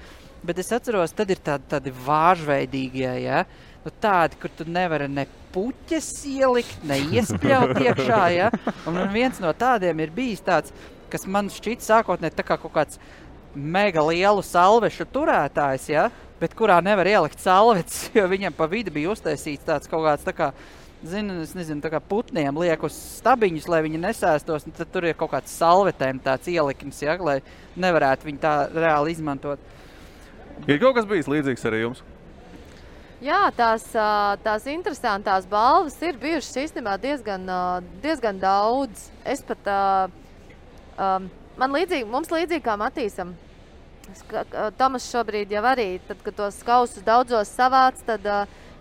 bet es atceros, tad ir tādi vāžveidīgie, ja, nu tādi, kur tu nevari ne puķes ielikt, ne iespļaut iekšā, ja, un viens no tādiem ir bijis tāds, kas man šķiet sākotnē tā kā kaut kāds mega lielu salvešu turētājs, ja, bet kurā nevar ielikt salvetes, jo viņam pa vidu bija uztaisīts tāds kaut kāds tā kā, es nezinu, tā kā putniem liek uz stabiņus, lai viņi nesēstos, un tad tur ir kaut kāds salvetēm tāds ielikums, ja, lai nevarētu viņu tā reāli izmantot. Ir kaut kas bijis līdzīgs arī jums? Jā, tās interesantās balvas ir bijušas īstenībā diezgan daudz. Es pat, mums līdzīgi kā Matīsam, Tomas šobrīd jau arī, tad, kad tos kausus daudzos savāc, tad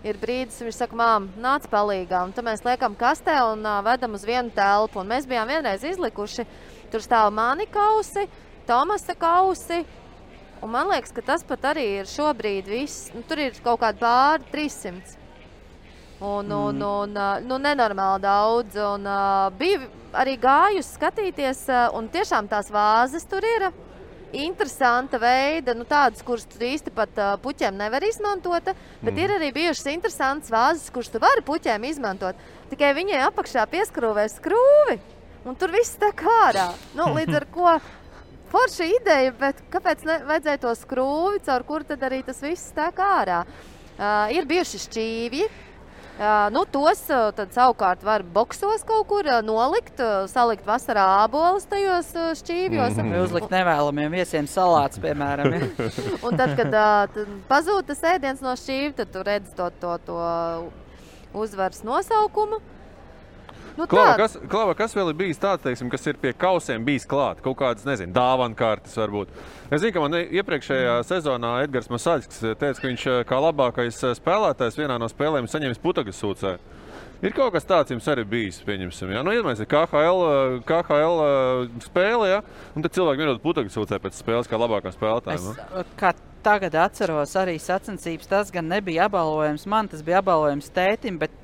ir brīdis, viņš saka, mām, nāc palīgā, un tad mēs liekam kastē un vedam uz vienu telpu, un mēs bijām vienreiz izlikuši, tur stāv mani kausi, Tomasa kausi, un man liekas, ka tas pat arī ir šobrīd viss, nu, tur ir kaut kādi pāri 300. Un nenormāli daudz, un bija arī gājus skatīties, un tiešām tās vāzes tur ir interesanta veida, nu tādas, kuras tu īsti pat puķiem nevar izmantot, bet ir arī bijušas interesantas vāzes, kuras tu vari puķiem izmantot, tikai viņai apakšā pieskrūvē skrūvi, un tur viss tek ārā. Nu, līdz ar ko forša ideja, bet kāpēc vajadzēja to skrūvi, caur kuru tad arī tas viss tek ārā? Ir bijuši šķīvji. Nu, tos tad savukārt var boksos kaut kur nolikt, salikt vasarā ābolus tajos šķīvjos. Vai uzlikt nevēlamiem viesiem salāts, piemēram. Ja? Un tad, kad pazūd tas ēdiens no šķīvja, tad tu redz to uzvaras nosaukumu. Nu, Klava, kas vēl ir bijis tāds, teiksim, kas ir pie kausiem bijis klāt? Kaut kādas, nezinu, dāvankartes varbūt. Es zinu, ka man iepriekšējā sezonā Edgars Masaļskis teica, ka viņš kā labākais spēlētājs vienā no spēlēm saņemis putagas sūcē. Ir kaut kas tāds jums arī bijis, pieņemsim. Ja? Nu, iedomājies, KHL spēle, ja? Un tad cilvēki vienot putagas sūcē pēc spēles kā labākā spēlētāja. Kā tagad atceros, arī sacensības tas gan nebija apbalvojums man, tas bija apbalvojums tētim, bet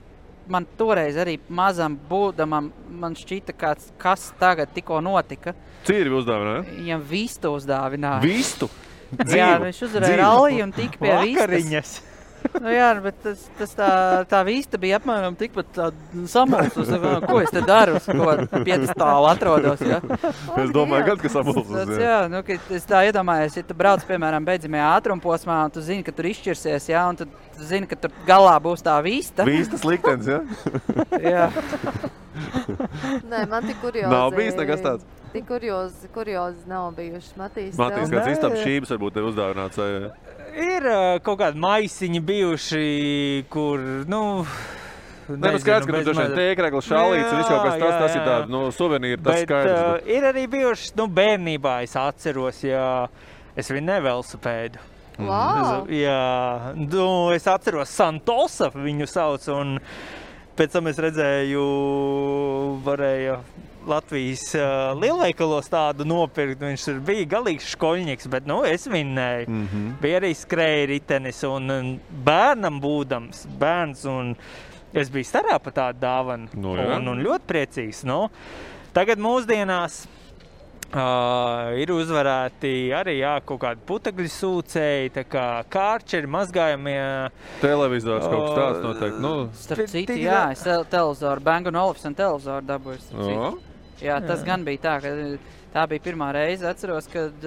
man toreiz arī mazam būdamam, man šķita, kas tagad tikko notika. Cīri uzdāvināja? Viņam vistu uzdāvināja. Vistu? Jā, viņš uzvarēja ralliju un tika pie vistas. Nu jā, bet tā vista bija apmēram tikpat samulsus. Ko es te daru? Ko piedestālu atrodos, ja? Es domāju, gan, ka samulsus. Jā, nu, es tā iedomājos, ja tu brauc, piemēram, beidzamajā ātrumposmā, un tu zini, ka tur izšķirsies, ja? Un tu zini, ka tur galā būs tā vista. Vistas liktenis, ja? Jā. Nē, man tik kuriozi. Nav bijis nekas tāds? Tik kuriozi nav bijuši. Matīs, kāds istabas šķības varbūt ir uzdāvināts vai... Ir kaut kādi maisiņi bijuši, kur, nu... Skaidrs, ka tur dažiem tēkregli, šalīts un viss kaut kas tas ir tāda, nu, suvenīri, tas skaidrs. Bet ir arī bijuši, nu, bērnībā es atceros, ja es viņu nevelosipēdu. Wow! Jā, nu, es atceros Santosa viņu sauc, un pēc tam es redzēju, varēja Latvijas lielveikalos tādu nopirkt, viņš bija galīgs škoļņiks, bet, nu, es vinnēju. Bija arī skrēja ritenis, un bērnam būdams, bērns, un es biju starā pa tādu dāvanu, un ļoti priecīgs, nu. Tagad mūsdienās ir uzvarēti arī, jā, kaut kādi putekļu sūcēji, tā kā kārčeri, mazgājumie. Televizors kaut kas tāds noteikti, nu. Starp citu, jā, es televizoru, Bang & Olufsen televizoru dabūju. Jā, tas gan bija tā, ka tā bija pirmā reize, atceros, kad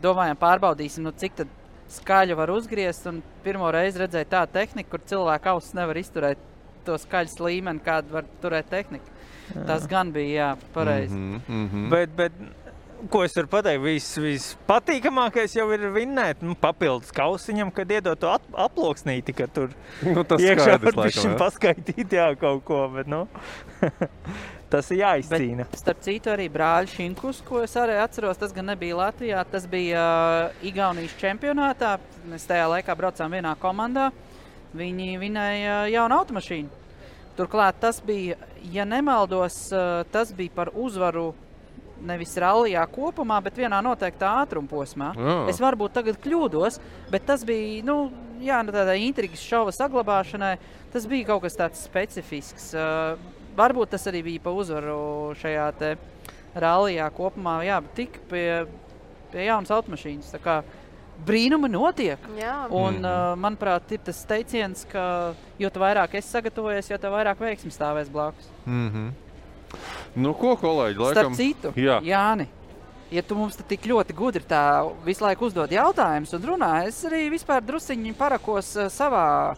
domājām pārbaudīsim, nu cik tad skaļu var uzgriezt, un pirmo reizi redzēju tā tehniku, kur cilvēku ausis nevar izturēt to skaļas līmeni, kādu var turēt tehnika. Tas gan bija, jā, pareizi. Bet ko es varu pateikt, vispatīkamākais jau ir vinnēt, papildus kausiņam, kad iedot to aploksnīti, ka tur tas iekšā skaidrs, var laikam, jā. paskaitīt, jā, kaut ko, bet, tas ir jāizcīna. Bet, starp citu, arī brāļi Šinkus, ko es arī atceros, tas gan nebija Latvijā, tas bija Igaunijas čempionātā. Mēs tajā laikā braucām vienā komandā. Viņi vinēja jaunu automašīnu. Turklāt tas bija, ja nemaldos, tas bija par uzvaru nevis rallijā kopumā, bet vienā noteiktā ātrumposmā. Es varbūt tagad kļūdos, bet tas bija, tādā intrigas šova saglabāšanai, tas bija kaut kas tāds specifisks. Varbūt tas arī bija pa uzvaru šajā te rallijā kopumā, bet tik pie jaunas automašīnas. Tā kā brīnumi notiek. Jā. Un, manuprāt, ir tas teiciens, ka jo vairāk es sagatavojies, jo vairāk veiksmi stāvēs blakus. Nu, ko, kolēģi, laikam? Starp citu, Jā. Jāni, ja tu mums tik ļoti gudri tā visu laiku uzdod jautājumus un runā, es arī vispār drusiņi parakos savā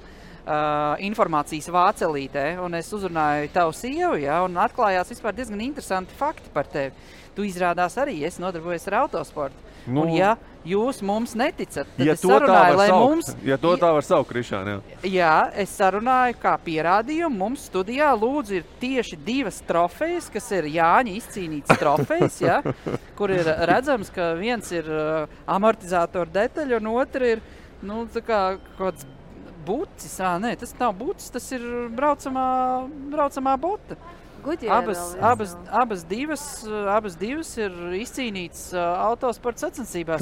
informācijas vācelītē, un es uzrunāju tavu sievu, un atklājās vispār diezgan interesanti fakti par tevi. Tu izrādās arī, es nodarbojos ar autosportu. Un ja jūs mums neticat, tad es sarunāju, lai mums... Ja to tā var saukt, Krišāni, jā. Jā, es sarunāju kā pierādījumu. Mums studijā lūdzu ir tieši 2 trofejas, kas ir Jāņa izcīnītas trofejas, kur ir redzams, ka viens ir amortizātoru detaļa un otra ir, tā kā kāds bucis. Nē, tas nav bucis, tas ir braucamā bota. Abas divas ir izcīnītas autosporta sacensībās.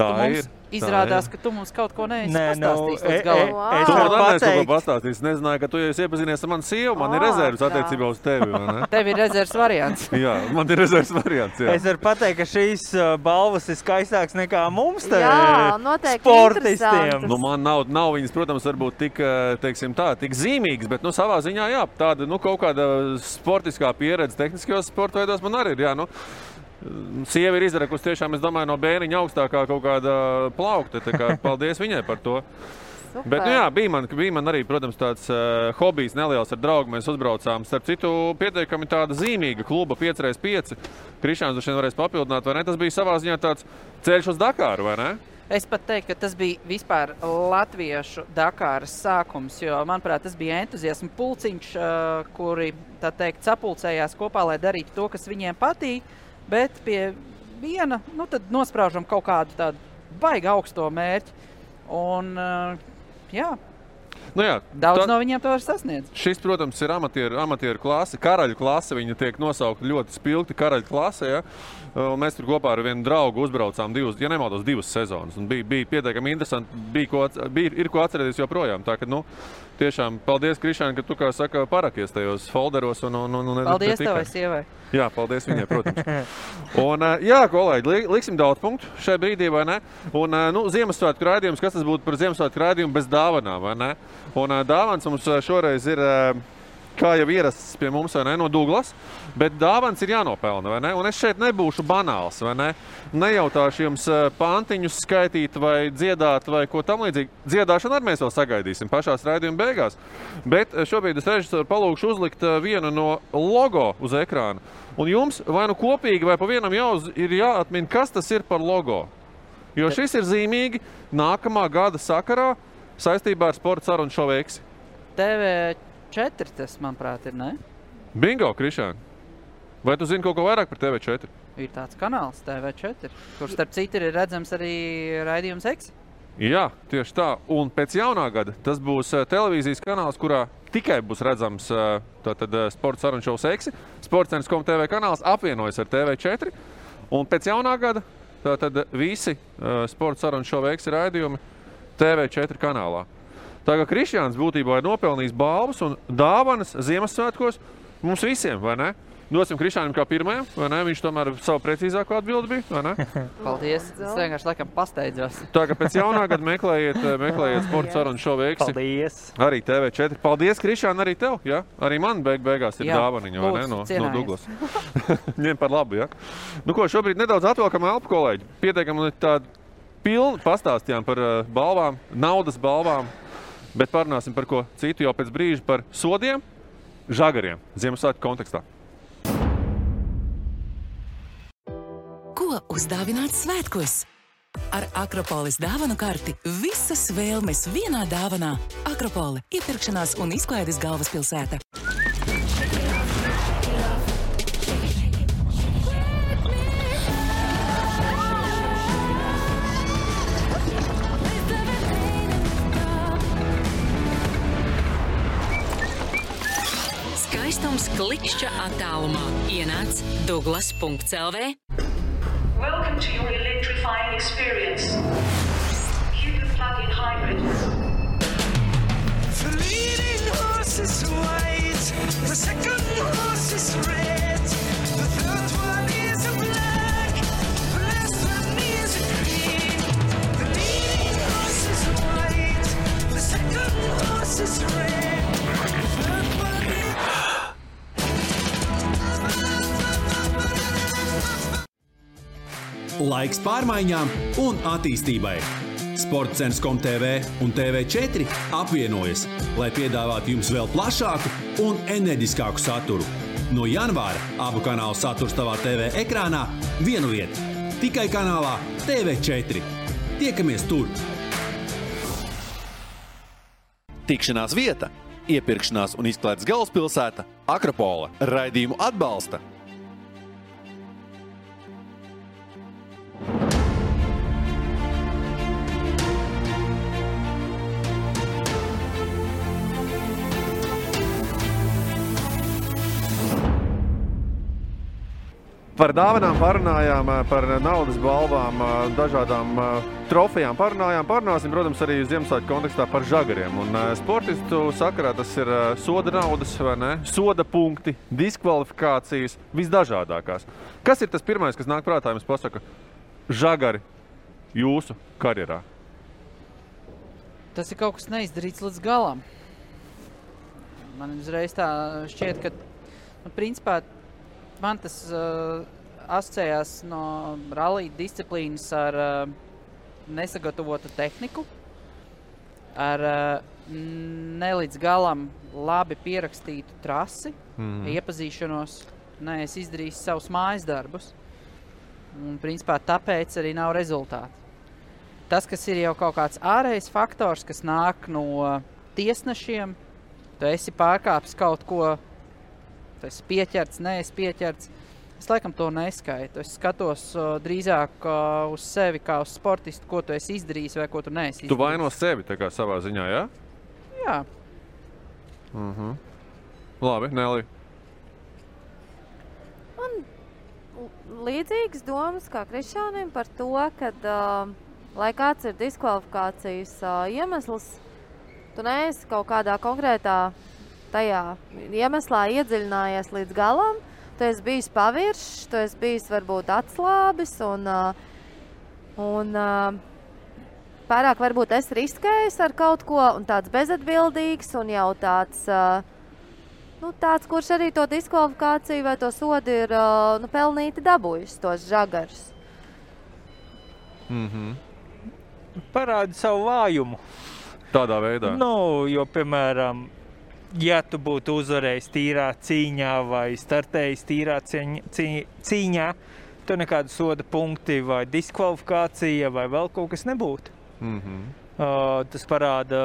Izrādās, ka tu mums kaut ko neesi pastāstījis līdz galam. Tu man neesi kaut ko pastāstījis. Nezināju, ka tu jau esi iepazinies ar manu sievu. Man ir rezervas attiecībā uz tevi, vai ne? Tev ir rezervas variants. Jā, man ir rezervas variants, jā. Es varu pateikt, ka šīs balvas ir skaistāks nekā mums te noteikti sportistiem. Man nav viņas, protams, varbūt tik, tik zīmīgas, bet, savā ziņā, jā, tāda, kaut kāda sportiskā pieredze tehniskajos sporta veidos man arī ir, jā, Sieva ir izdarekusi tiešām, es domāju, no bērniņa augstākā kaut kāda plaukta, tā kā paldies viņai par to. Super. Bet, bija man arī, protams, tāds hobijs neliels ar draugu, mēs uzbraucām. Starp citu, pietiekami tāda zīmīga kluba 5x5. Krišāns droši vien varēs papildināt, vai ne? Tas bija savā ziņā tāds ceļš uz Dakāru, vai ne? Es pat teiktu, ka tas bija vispār latviešu Dakāras sākums, jo, manuprāt, tas bija entuziasma pulciņš, kuri, tā teikt, sapulcējās kopā, lai darītu to, kas viņiem patīk, bet pie viena, tad nospraužam kaut kādu tādu baigi augsto mērķi. Un, daudz no viņiem to var sasniedzt. Šis, protams, ir amatieru klase, karaļu klase, viņa tiek nosaukta ļoti spilgti karaļu klase, ja? Mēs tur kopā ar vienu draugu uzbraucām divas sezonas, un bija pietiekami interesanti, ir ko atcerēties joprojām, tā ka, tiešām paldies, Krišāni, ka tu, kā saka, parakies tajos folderos un paldies tavai sievai. Jā, paldies viņai, protams. Un, kolēģi, liksim daudz punktu šai brīdī, vai ne? Un, Ziemassvētku raidījums, kas tas būtu par Ziemassvētku raidījumu bez dāvanām, vai ne? Un dāvans mums šoreiz ir, kā jau ierasts pie mums, vai ne, no Douglas, bet dāvans ir jānopelna, vai ne? Un es šeit nebūšu banāls, vai ne? Nejautāšu jums pantiņus skaitīt vai dziedāt vai ko tam līdzīgi. Dziedāšanu arī mēs vēl sagaidīsim pašās raidījuma beigās. Bet šobrīd es režisoru palūkšu uzlikt vienu no logo uz ekrāna. Un jums vai kopīgi vai pa vienam ir jāatmin, kas tas ir par logo. Jo šis ir zīmīgi nākamā gada sakarā saistībā ar sporta sarunu šovu Eksi. TV4 tas, manuprāt, ir, ne? Bingo, Krišāni. Vai tu zini kaut ko vairāk par TV4? Ir tāds kanāls TV4, kurš starp citu ir redzams arī raidījums Eksi. Jā, tieši tā. Un pēc jaunā gada tas būs televīzijas kanāls, kurā tikai būs redzams sporta sarunu šovs Eksi. Sports.com TV kanāls apvienojas ar TV4. Un pēc jaunā gada tātad visi sporta sarunu šovu Eksi raidījumi TV4 kanālā. Tā kā Krišjāns būtībā ir nopelnījis balvas un dāvanas Ziemassvētkos mums visiem, vai ne? Dosim Krišjānam kā pirmajam, vai ne? Viņš tomēr savu precīzāko atbildi bija, vai ne? Paldies, es vienkārši laikam pasteidzos. Tā kā pēc jaunā gada meklējiet sporta sarunu šovu Eksi. Paldies. Arī TV4. Paldies, Krišjān, arī tev, ja? Arī man beigās ir dāvaniņa, vai ne? No Douglas. Ņem par labu, ja? Ko, šobrīd nedaudz atvelkam elpu, kolēģi. Pietiekami tādu pilni pastāstījām par balvām, naudas balvām, bet parunāsim par ko citu jau pēc brīža par sodiem, žagariem, Ziemassvētku kontekstā. Ko uzdāvināt svētkos. Ar Akropolis dāvanu karti visas vēlmes vienā dāvanā. Akropole – iepirkšanās un izklaides galvaspilsēta. Skaistums klikšķa attālumā. Ienāc Douglas.lv. Welcome to your electrifying experience. Cupid plug-in hybrid. The leading horse is white, the second horse is red, the third one is a black, the last one is a green. The leading horse is white, the second horse is red, the third one is... Laiks pārmaiņām un attīstībai. Sportcens.com.tv un TV4 apvienojas, lai piedāvātu jums vēl plašāku un enerģiskāku saturu. No janvāra abu kanālu saturs tavā TV ekrānā vienu vietu. Tikai kanālā TV4. Tiekamies tur! Tikšanās vieta, iepirkšanās un izklaides galvaspilsēta Akropole. Raidījumu atbalsta Par dāvanām parunājām, par naudas balvām, dažādām trofejām parunāsim, protams, arī Ziemassvētku kontekstā par žagariem. Un sportistu sakarā tas ir soda naudas, vai ne? Soda punkti, diskvalifikācijas, visdažādākās. Kas ir tas pirmais, kas nāk prātā, jums pasaka, žagari jūsu karjerā? Tas ir kaut kas neizdarīts līdz galam. Man uzreiz tā šķiet, ka, principā, man tas asociējās no rallija disciplīnas ar nesagatavotu tehniku, ar nelīdz galam labi pierakstītu trasi, iepazīšanos, es izdarīju savus mājas darbus. Un, principā, tāpēc arī nav rezultāti. Tas, kas ir jau kaut kāds ārējs faktors, kas nāk no tiesnešiem, tu esi pārkāpis kaut ko, tu esi pieķerts, neesi pieķerts. Es laikam to neskaitu. Es skatos drīzāk uz sevi kā uz sportistu, ko tu esi izdarījis vai ko tu neesi izdarījis. Tu vaino sevi tā kā savā ziņā, jā? Jā. Labi, Nelija. Man līdzīgas domas kā Krišānim par to, kad, lai kāds ir diskvalifikācijas iemesls, tu neesi kaut kādā konkrētā tajā iemeslā iedziļinājies līdz galam, tu esi bijis paviršs, tu esi bijis varbūt atslābis un pārāk varbūt esi riskējis ar kaut ko un tāds bezatbildīgs un jau tāds, tāds, kurš arī to diskvalifikāciju vai to sodu ir pelnīti dabūjis, tos žagarus. Parādi savu vājumu. Tādā veidā? Jo, piemēram, ja tu būtu uzvarējis tīrā cīņā vai startējis tīrā cīņā, tu nekādu soda punkti vai diskvalifikācija vai vēl kaut kas nebūtu. Tas parāda,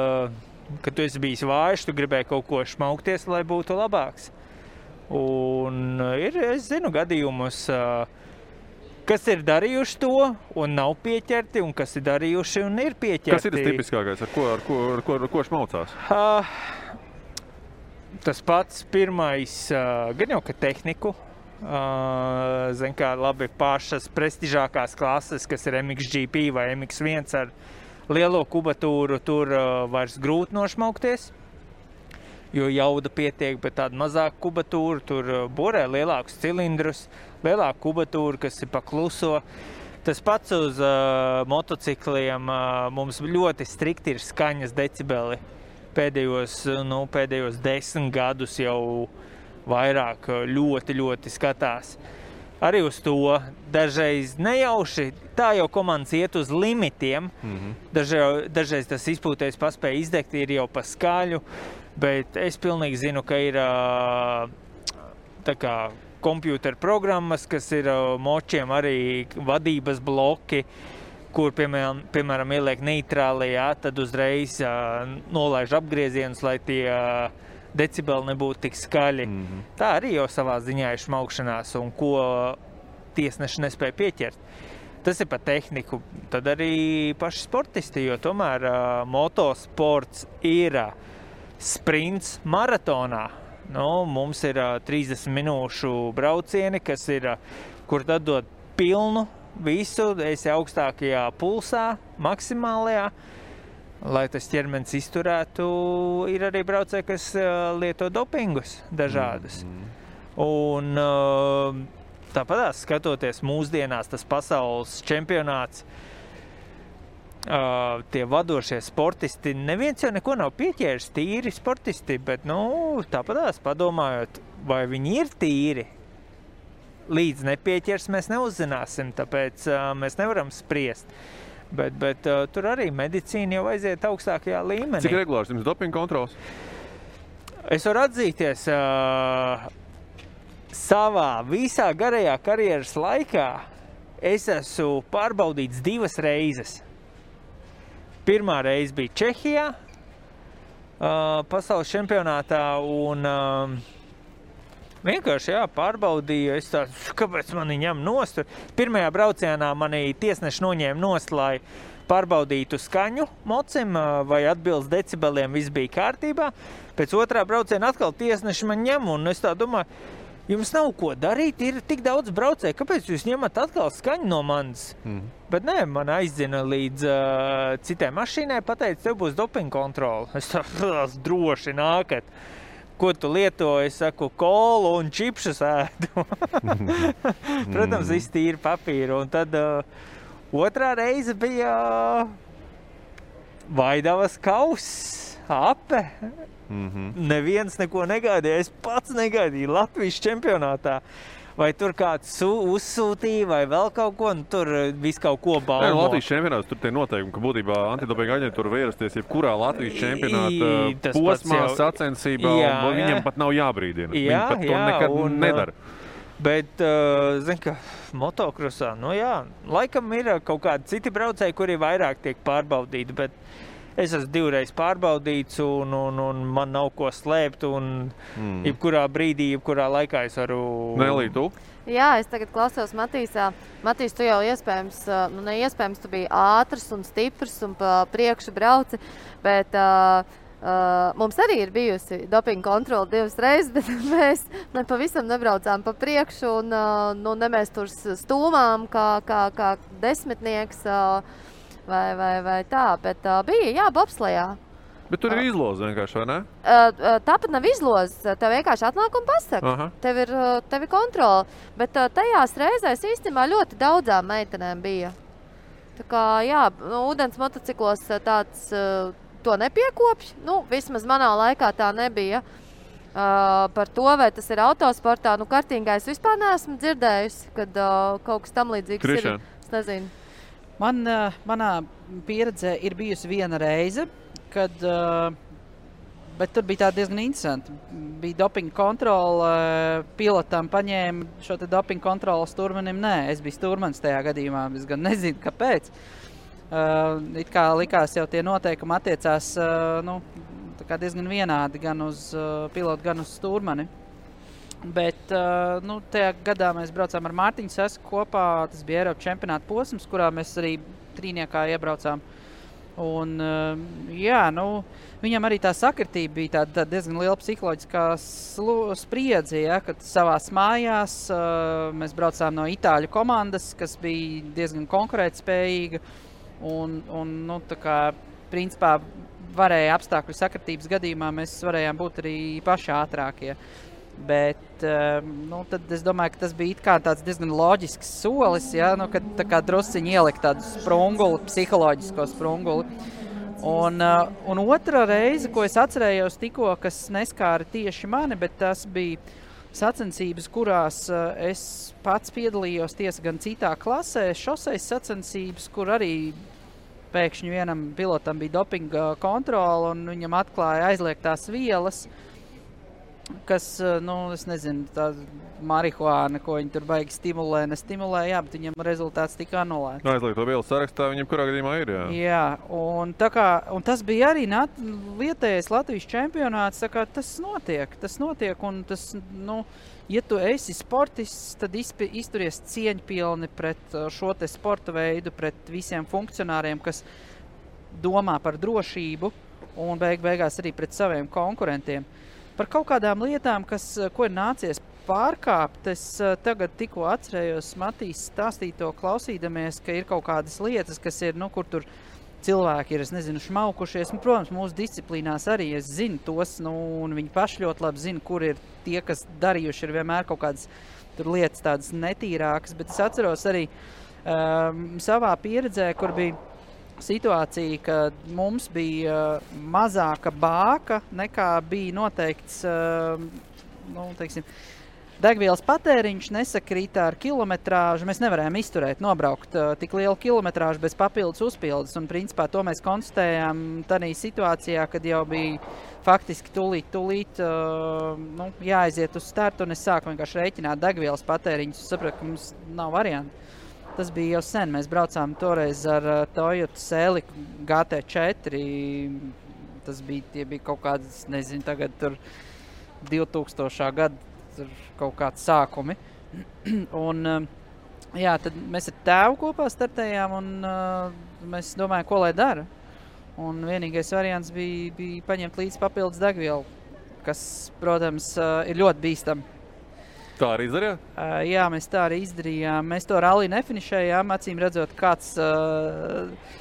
ka tu esi bijis vājš, tu gribēji kaut ko šmaukties, lai būtu labāks. Un es zinu gadījumus, kas ir darījuši to un nav pieķerti, un kas ir darījuši un ir pieķerti. Kas ir tas tipiskākais, ar ko šmaucās? Tas pats pirmais, gan jau, ka tehniku, zin kā labi pašas prestižākās klases, kas ir MXGP vai MX1 ar lielo kubatūru, tur vairs grūti nošmaukties, jo jauda pietiek, bet tāda mazāka kubatūra, tur borē lielākus cilindrus, lielāku kubatūru, kas ir pakluso. Tas pats uz motocikliem, mums ļoti strikti ir skaņas decibeli. Pēdējos 10 gadus jau vairāk ļoti skatās. Arī uz to dažreiz nejauši, tā jau komandas iet uz limitiem. Dažreiz tas izpūtējs paspēja izdegt, ir jau pa skaļu, bet es pilnīgi zinu, ka ir tā kā kompjūteru programmas, kas ir močiem arī vadības bloki, kur, piemēram, ieliek neitrāli, tad uzreiz nolaiž apgriezienus, lai tie decibeli nebūtu tik skaļi. Tā arī jau savā ziņā ir šmaukšanās, un ko tiesneši nespēja pieķert. Tas ir par tehniku. Tad arī paši sportisti, jo tomēr motosports ir sprints maratonā. Mums ir 30 minūšu braucieni, kas ir, kur tad dod pilnu visu, esi augstākajā pulsā, maksimālajā, lai tas ķermenis izturētu. Ir arī braucēji, kas lieto dopingus dažādus. Un tāpatās skatoties mūsdienās tas pasaules čempionāts, tie vadošie sportisti, neviens jau neko nav pieķēris, tīri sportisti, bet, tāpatās padomājot, vai viņi ir tīri, līdz nepieķers mēs neuzzināsim, tāpēc mēs nevaram spriest. Bet tur arī medicīna jau aiziet augstākajā līmenī. Cik regulārs jums dopinga kontrols? Es varu atzīties, savā visā garajā karjeras laikā es esmu pārbaudīts 2 reizes. Pirmā reize bija Čehijā, pasaules čempionātā, un vienkārši pārbaudīju, es tādu, kāpēc mani ņem nost. Pirmajā braucienā mani tiesneši noņēma nost, lai pārbaudītu skaņu mocim, vai atbilst decibeliem, viss bija kārtībā. Pēc otrā brauciena atkal tiesneši man ņem, un es tā domāju, jums nav ko darīt, ir tik daudz braucēju, kāpēc jūs ņemat atkal skaņu no manis? Bet nē, man aizdzina līdz citai mašīnai, pateica, tev būs dopinga kontrole. Es tā droši nākat. Ko tu lieto? Es saku, kolu un čipšus ēdu. Protams, viss tīri papīru. Un tad otrā reize bija Vaidavas kauss, ape. Neviens neko negaidīja, es pats negaidīju Latvijas čempionātā. Vai tur kāds uzsūtīja, vai vēl kaut ko, un tur viss kaut ko baumo. Latvijas čempionāts, tur tie noteikumi, ka būtībā antidopinga aģentūra var ierasties jebkurā Latvijas čempionāta posmā, sacensībā, un viņam pat nav jābrīdina. Viņi pat to nekad nedara. Bet, zin, ka motokrosā, laikam ir kaut kādi citi braucēji, kuri vairāk tiek pārbaudīti, bet es esmu 2 reizes pārbaudīts, un man nav ko slēpt, un jebkurā brīdī, jebkurā laikā es varu... Nelī, tu? Jā, es tagad klausos Matīsā. Matīs, tu jau iespējams, neiespējams, tu biji ātrs un stiprs un pa priekšu brauci, bet mums arī ir bijusi dopinga kontrole 2 reizes, bet mēs pavisam nebraucām pa priekšu, un ne mēs tur stūmām kā desmitnieks, vai tā, bet bija, bobslejā. Bet tur ir izloze vienkārši, vai ne? Tāpat nav izloze, tev vienkārši atnāk un pasaka. Tev ir kontrole, bet tajās reizēs īstenībā ļoti daudzām meitenēm bija. Tā kā, ūdens motociklos tāds to nepiekopš, vismaz manā laikā tā nebija. Par to, vai tas ir autosportā, kartingā es vispār neesmu dzirdējusi, kad kaut kas tam līdzīgs Krišana. Ir. Es nezinu. Manā pieredzē ir bijusi 1 reize, bet tur bija tā diezgan interesanti. Bija dopinga kontrole, pilotam paņēma šo te dopinga kontroli, stūrmanim nē. Es biju stūrmanis tajā gadījumā, es gan nezinu, kāpēc. It kā likās jau tie noteikumi attiecās tā kā diezgan vienādi gan uz pilotu, gan uz stūrmani. Bet tajā gadā mēs braucām ar Mārtiņu Sesku kopā, tas bija Eiropas čempionāta posms, kurā mēs arī trīniekā iebraucām. Un, viņam arī tā sakritība bija tāda diezgan liela psiholoģiskā spriedze, kad savās mājās mēs braucām no Itāļu komandas, kas bija diezgan konkurētspējīga, un tā kā principā varēja apstākļu sakritības gadījumā mēs varējām būt arī paši ātrākie. Bet tad es domāju, ka tas bija it kā tāds diezgan loģisks solis, kad tā kā drusciņi ielikt tādu sprunguli, psiholoģisko sprunguli. Un otra reize, ko es atcerējos tikko, kas neskāra tieši mani, bet tas bija sacensības, kurās es pats piedalījos tiesa gan citā klasē, šoseis sacensības, kur arī pēkšņi vienam pilotam bija dopinga kontrole un viņam atklāja aizliegtās vielas. kas, es nezinu, tā marihuāna, ko viņi tur baigi nestimulē, jā, bet viņam rezultāts tika anulēts. Aizliegto vielu sarakstā viņam kurā gadījumā ir, jā. Jā, un tas bija arī vietējais Latvijas čempionāts, tā kā tas notiek, un tas, ja tu esi sportists, tad izturies cieņpilni pret šo te sporta veidu, pret visiem funkcionāriem, kas domā par drošību, un beigās arī pret saviem konkurentiem. Par kaut kādām lietām, ko ir nācies pārkāpt, es tagad tikko atcerējos Matīs stāstīto klausīdamies, ka ir kaut kādas lietas, kas ir, kur tur cilvēki ir, es nezinu, šmaukušies. Protams, mūsu disciplīnās arī es zinu tos, un viņi paši ļoti labi zina, kur ir tie, kas darījuši ir vienmēr kaut kādas tur lietas tādas netīrākas, bet es atceros arī savā pieredzē, kur bija situācija, ka mums bija mazāka bāka nekā bija noteikts, degvielas patēriņš nesakrītā ar kilometrāžu. Mēs nevarējām izturēt, nobraukt tik lielu kilometrāžu bez papildus uzpildes. Un principā to mēs konstatējām tādā situācijā, kad jau bija faktiski tūlīt jāaiziet uz startu, un es sāku vienkārši rēķināt degvielas patēriņus. Es sapratu, ka mums nav variantu. Tas bija jau sen. Mēs braucām toreiz ar Toyota Celica GT4. Tie bija kaut kādas, nezinu, tagad tur 2000. Gada tur kaut kādi sākumi. Un, tad mēs ar tēvu kopā startējām, un mēs domājām, ko lai dara. Un vienīgais variants bija paņemt līdz papildus degvielu, kas, protams, ir ļoti bīstami. Tā arī izdarījāt? Jā, mēs tā arī izdarījām. Mēs to ralli nefinišējām, acīm redzot, kāds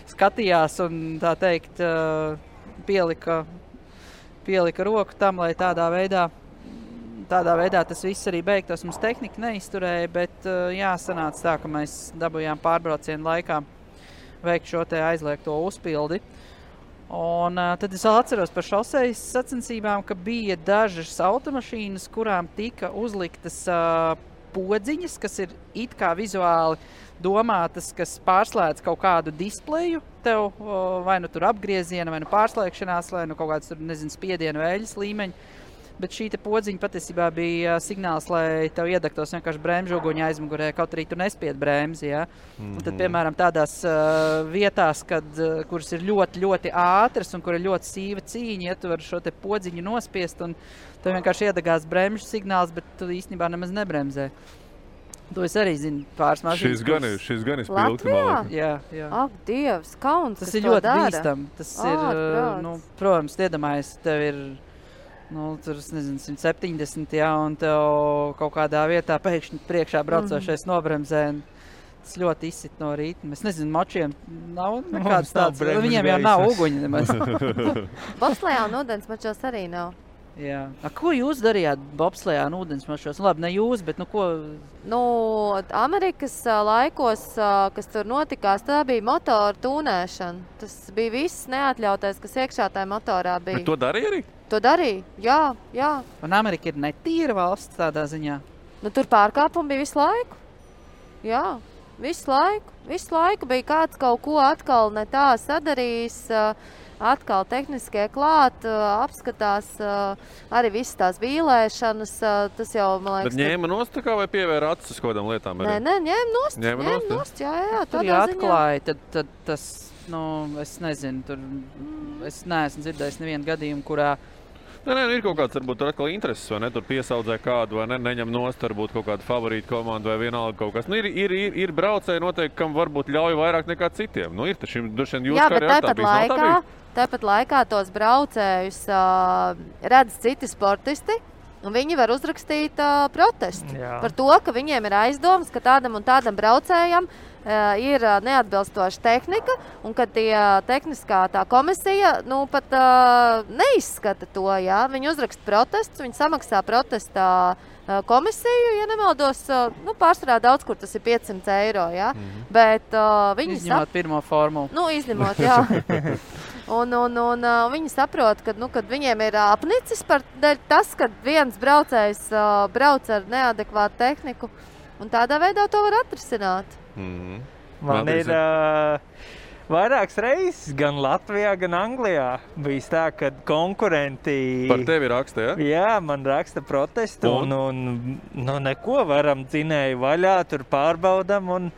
skatījās un tā teikt pielika roku tam, lai tādā veidā tas viss arī beigtos. Mums tehnika neizturēja, bet sanāca tā, ka mēs dabūjām pārbraucienu laikā veikt šo te aizliegto uzpildi. Un tad es vēl atceros par šosejas sacensībām, ka bija dažas automašīnas, kurām tika uzliktas podziņas, kas ir it kā vizuāli domātas, kas pārslēdz kaut kādu displeju tev, vai nu tur apgrieziena, vai nu pārslēgšanās, vai nu kaut kāds tur, nezinu, spiedienu vēļas līmeņi. Bet šī te podziņa patiesībā bija signāls, lai tev iedegtos vienkārši bremžu uguņa aizmugurē, kaut arī tu nespied bremzi, ja? Un tad, piemēram, tādās vietās, kuras ir ļoti, ļoti ātras un kur ir ļoti sīva cīņa, ja tu vari šo te podziņu nospiest un tev vienkārši iedegās bremžu signāls, bet tu īstenībā nemaz nebremzē. To es arī zinu pāris mašīnas. Šis gan ir spilgti, man liekas. Jā. Ak, Dievs, kauns, tas ir ļoti bīstam. Tas ir, protams, iedomājies, tev ir tur, es nezinu, 170, jā, un tev kaut kādā vietā pēkšņi priekšā braucošais nobremzē. Tas ļoti izsit no rīta. Es nezinu, močiem nav nekādas tādas. Viņiem jau nav uguņi nemaz. Bobslejā un ūdensmačos arī nav. Jā. Ko jūs darījāt bobslejā un ūdensmačos? Labi, ne jūs, bet ko? Amerikas laikos, kas tur notikās, tā bija motoru tūnēšana. Tas bija viss neatļautais, kas iekšā tajā motorā bija. Bet to darīja arī? To darīja, jā. Un Amerika ir netīra valsts tādā ziņā? Tur pārkāpumi bija visu laiku. Jā, visu laiku bija kāds kaut ko atkal ne tā sadarījis, atkal tehniskie klāt, apskatās arī visas tās vīlēšanas, tas jau, man liekas... Bet ņēma nost tā kā vai pievēra acis uz kodām lietām arī? Nē, ņēma nost, jā, tur jāatklāja, tad tas, es nezinu, tur, es neesmu dzirdējis nevienu gadījumu, kurā... Nē, ir kaut kāds, varbūt, tur atkal intereses, vai ne? Tur piesaudzē kādu, vai ne? Neņem nost, varbūt kaut kādu favorītu komandu vai vienalga kaut kas. Ir braucēji noteikti, kam varbūt ļauj vairāk nekā citiem. Ir taču, droši vien jūs kā arī tā bijis. Tāpat laikā tos braucējus redz citi sportisti, un viņi var uzrakstīt protestu par to, ka viņiem ir aizdomas, ka tādam un tādam braucējam ir neatbilstoša tehnika, un ka tehniskā tā komisija pat neizskata to. Ja? Viņi uzraksta protestus, viņi samaksā protestā komisiju, ja nemaldos, pārsvarā daudz, kur tas ir 500 eiro. Ja? Bet viņi izņemot pirmo formulu. Izņemot, jā. Un viņi saprot, ka kad viņiem ir apnicis par tas, ka viens braucējs brauc ar neadekvātu tehniku, un tādā veidā to var atrisināt. Man ir vairākas reizes, gan Latvijā, gan Anglijā. Bijis tā, ka konkurenti... Par tevi raksta, ja? Jā, man raksta protestu un neko varam dzinēju vaļā, tur pārbaudam un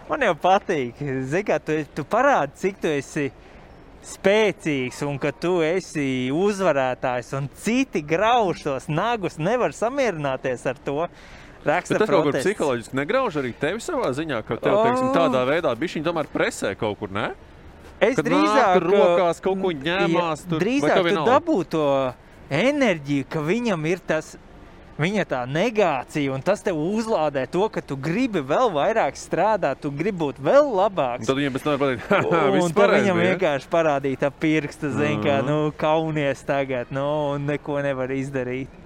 man jau patīk. Zini, kā tu parādi, cik tu esi spēcīgs un ka tu esi uzvarētājs un citi grauž tos nagus, nevar samierināties ar to. Raksta bet tas kaut kur protests. psiholoģiski negrauž arī tevi savā ziņā, ka tev, teiksim, tādā veidā bišķiņ tomēr presē kaut kur, ne? Es kad drīzāk... Kad rokās kaut ko ņemās tur, drīzāk tu dabū to enerģiju, ka viņam ir tas, viņa tā negācija, un tas tev uzlādē to, ka tu gribi vēl vairāk strādāt, tu gribi būt vēl labāks. Un tad viņam pēc nevar pateikt, viss un tad pareizi, viņam ja? vienkārši parādīt ap pirkstu, zin, kā, kaunies tagad, un neko nevar izdarīt.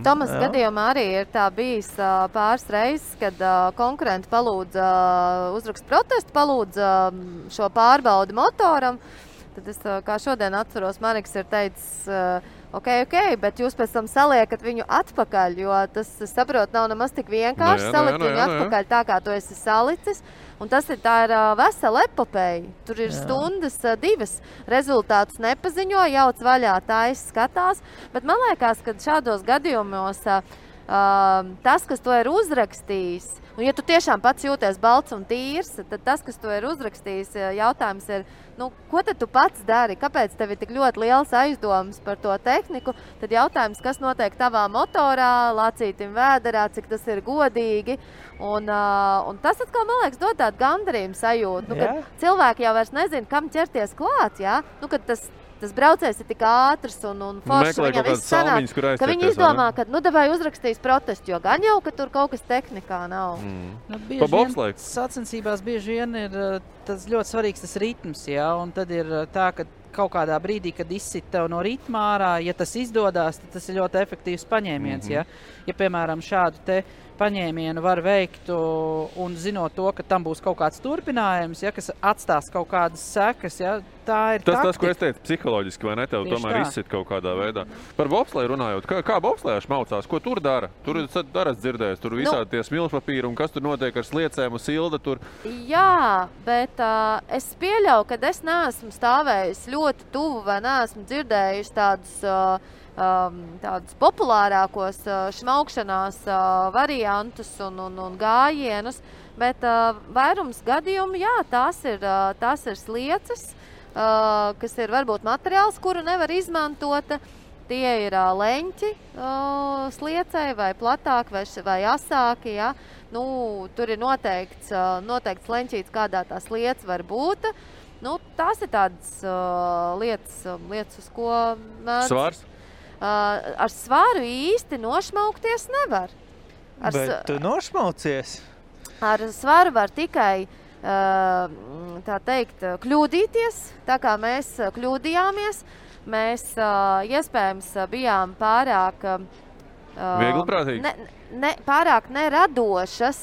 Tomas gadījumā arī ir tā bijis pāris reizes, kad konkurenti palūdza uzrakst protestu, palūdza šo pārbaudi motoram. Tad es, kā šodien atceros, Mariks ir teicis, ok, bet jūs pēc tam saliekat viņu atpakaļ, jo tas, es saprotu, nav nemaz tik vienkārši salikt viņu atpakaļ tā, kā tu esi salicis. Un tā ir vesela epopeja. Tur ir stundas, 2 rezultātus nepaziņo, jauc vaļā, taisa skatās. Bet man liekas, ka šādos gadījumos tas, kas to ir uzrakstījis, un ja tu tiešām pats jūties balts un tīrs, tad tas, kas to ir uzrakstījis, jautājums ir, ko tad tu pats dari? Kāpēc tev ir tik ļoti liels aizdomas par to tehniku? Tad jautājums, kas notiek tavā motorā, lacītim vēderā, cik tas ir godīgi. Un tas atkal, man liekas, dod tādu gandarījumu sajūtu. Kad cilvēki jau vairs nezina, kam ķerties klāt, kad tas braucējs ir tik ātrs un foršs, viņam viss sanāk, ka viņi izdomā, ka, davai uzrakstīs protestu, jo gan jau, ka tur kaut kas tehnikā nav. Bieži vien sacensībās bieži vien ir tas ļoti svarīgs tas ritms, un tad ir tā, ka kaut kādā brīdī, kad izsit tev no ritmā ārā, ja tas izdodās, tad tas ir ļoti efektīvs paņēmiens, Ja, piemēram, šādu te paņēmienu var veikt un zinot to, ka tam būs kaut kāds turpinājums, kas atstās kaut kādas sekas, tā ir taktika. Tas, ko es teicu, psiholoģiski, vai ne, tev tomēr izsit kaut kādā veidā. Par bobsleju runājot, kā bobslejāši maucās, ko tur dara? Tur daras dzirdējis, tur visādi tie smilšpapīri un kas tur notiek ar sliecēm un silda tur. Jā, bet es pieļauju, ka es neesmu stāvējis ļoti tuvu vai neesmu dzirdējis tādus populārākos šmaukšanās variantus un gājienus, bet vairums gadījumu, tās ir slieces, kas ir varbūt materiāls, kuru nevar izmantot. Tie ir leņķi sliecei vai platāki vai asāki, tur ir noteikts leņķīts, kādā tā sliece var būt. Tās ir tādas lietas, uz ko mēdz. Svars? Ar svaru īsti nošmaukties nevar. Bet tu nošmaucies? Ar svaru var tikai, tā teikt, kļūdīties, tā kā mēs kļūdījāmies. Mēs iespējams bijām pārāk viegliprātīgi? Pārāk neradošas.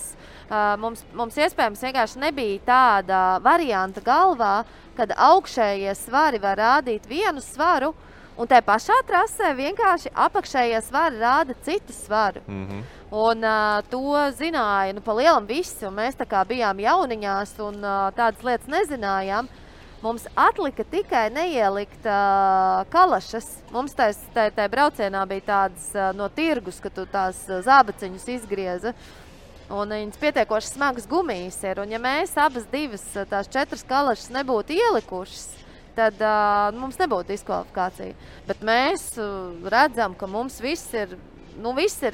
Mums iespējams vienkārši nebija tāda varianta galvā, kad augšējie svari var rādīt vienu svaru, un tajā pašā trasē vienkārši apakšējie svari rāda citu svaru. Un to zināja pa lielam visi, un mēs tā kā bijām jauniņās un tādas lietas nezinājām. Mums atlika tikai neielikt kalašas. Mums tajā braucienā bija tādas no tirgus, ka tu tās zābaciņus izgrieza. Un viņas pietiekoši smagas gumijas ir. Un ja mēs abas tās 4 kalašas nebūtu ielikušas, tad mums nebūtu diskvalifikācija. Bet mēs redzam, ka mums viss ir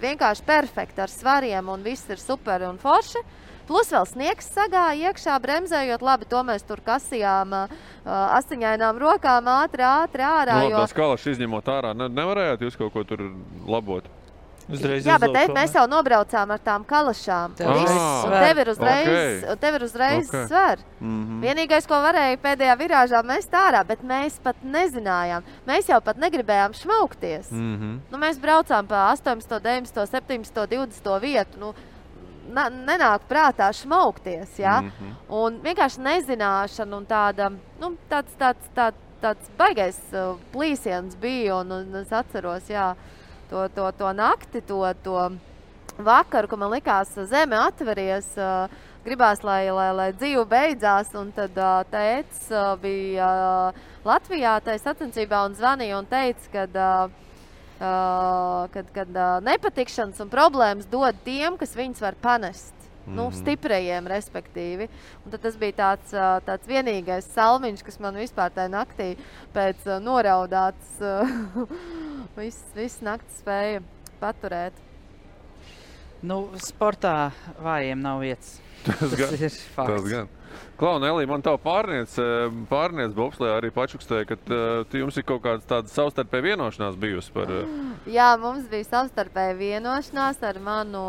vienkārši perfekti ar svariem un viss ir super un forši. Plus vēl sniegs sagāja iekšā, bremzējot labi, to mēs tur kasījām asiņainām rokām ātri ārā. Tas kalašs izņemot ārā, nevarējāt jūs kaut ko tur labot? Jā, bet mēs jau nobraucām ar tām kalašām. Tev ir uzreiz sver. Vienīgais, ko varēja pēdējā virāžā mest ārā, bet mēs pat nezinājām. Mēs jau pat negribējām šmaukties. Mēs braucām pa 18, 19, 17, 20 vietu. Nenāk prātā šmaukties, un vienkārši nezināšana un tāds baigais plīsiens bija, un es atceros, to nakti, to vakaru, ka man likās zeme atveries, gribās, lai dzīve beidzās, un tad tētis bija Latvijā tajā sacensībā un zvanīja un teica, kad nepatikšanas un problēmas dod tiem, kas viņus var panest. Nu, stiprajiem, respektīvi. Un tad tas bija tāds vienīgais salmiņš, kas man vispār tajā naktī pēc noraudāts viss nakts spēja paturēt. Nu, sportā vājiem nav vietas. Tas ir fakts. Tas gan. Klau, Nelī, man tavu pārniec bobslejā arī pačukstēja, ka jums ir kaut kāds tāds savstarpēja vienošanās bijusi par... Jā, mums bija savstarpēja vienošanās ar manu...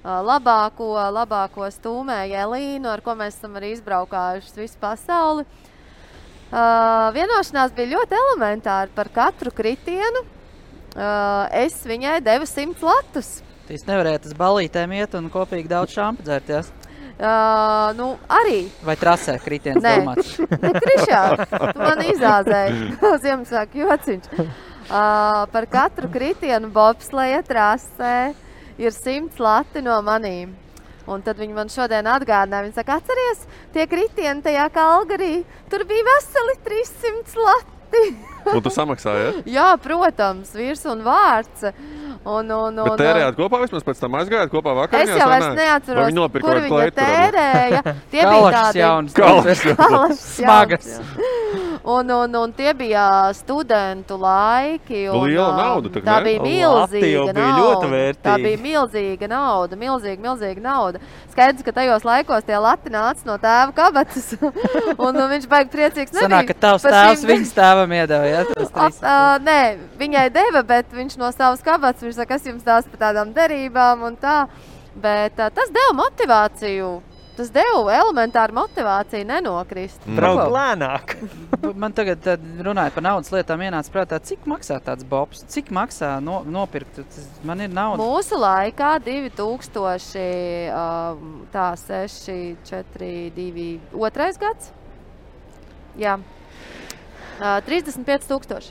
labāko stūmēju Elīnu, ar ko mēs esam arī izbraukājuši visu pasauli. Vienošanās bija ļoti elementāri par katru kritienu. Es viņai devu 100 latus. Jūs nevarējāt uz balītēm iet un kopīgi daudz šampa dzērties? Nu, arī. Vai trasē kritiens domāts? Ne, Krišā, tu man izāzēji. Ziemassvētku jociņš. Par katru kritienu bobsleja trasē ir 100 lati no manīm. Un tad viņi man šodien atgādināja, viņi saka, atceries, tie kritieni tajā Kalgarī, tur bija veseli 300 lati. Un tu samaksāji, ja? Jā, protams, virs un vārds. Bet tērējāt kopā vismaz pēc tam aizgājāt kopā vakariņās? Es jau vairs neatceros, kur viņa tērēja. Tie Kalašs jauns. Kalašs smagas. Un tie bija studentu laiki. Liela nauda, tā bija milzīga nauda. Tā bija milzīga nauda, milzīga nauda. Skaidrs, ka tajos laikos tie lati nāca no tēva kabatas. Un viņš baigi priecīgs nebija. Sanāk, ka tavs tēvs viņas tēvam iedeva, ja? Nē, viņai deva, bet viņš no savas kabatas, viņš saka, kas jums tās par tādām derībām un tā. Bet tas deva motivāciju. Tas deva elementāru motivāciju nenokrist. Braukt lēnāk. Man tagad runājot par naudas lietām ienāca prātā, cik maksā tāds bobs? Cik maksā nopirkt? Man ir nauda. Mūsu laikā 2000, 6, 4, 2, 2. gads. Jā. 35 000.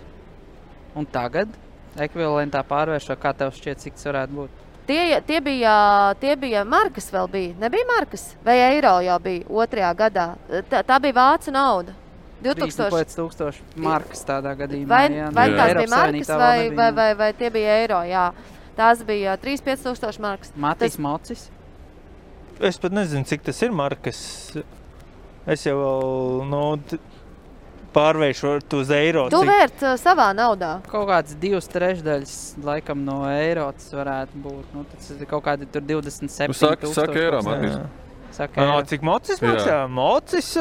Un tagad ekvivalentā pārvēršo, kā tev šķiet, cik tas varētu būt? Tie bija markas vēl bija. Nebija markas? Vai eiro jau bija 2. gadā? Tā bija vācu nauda. 3000 markas tādā gadījumā. Vai tās bija markas vai tie bija eiro? Jā. Tās bija 35 000 markas. Matīs Mocis? Es pat nezinu, cik tas ir markas. Es jau pārvēršu uz eiro. Tu vērt savā naudā. Kaut kāds 2/3 laikam no eiro tas varētu būt. Nu, tas ir kaut kādi tur 27 000. Saka eiro, Matīs. Cik mocis maksā? Mocis?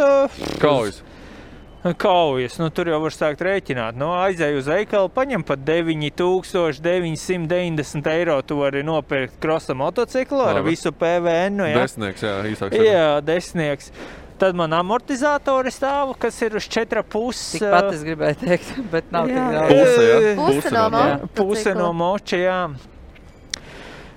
Kaujas. Nu, tur jau var sākt rēķināt. Nu, aizēju uz veikalu, paņem pat 9990 eiro. Tu vari nopirkt krosa motociklu ar visu PVN. Ja? Desnieks, jā, īsāk. Jā, desnieks. Tad man amortizatori stāv, kas ir uz 4,5. Tikpat es gribēju teikt, bet nav tik daudz. Puse no moča, jā.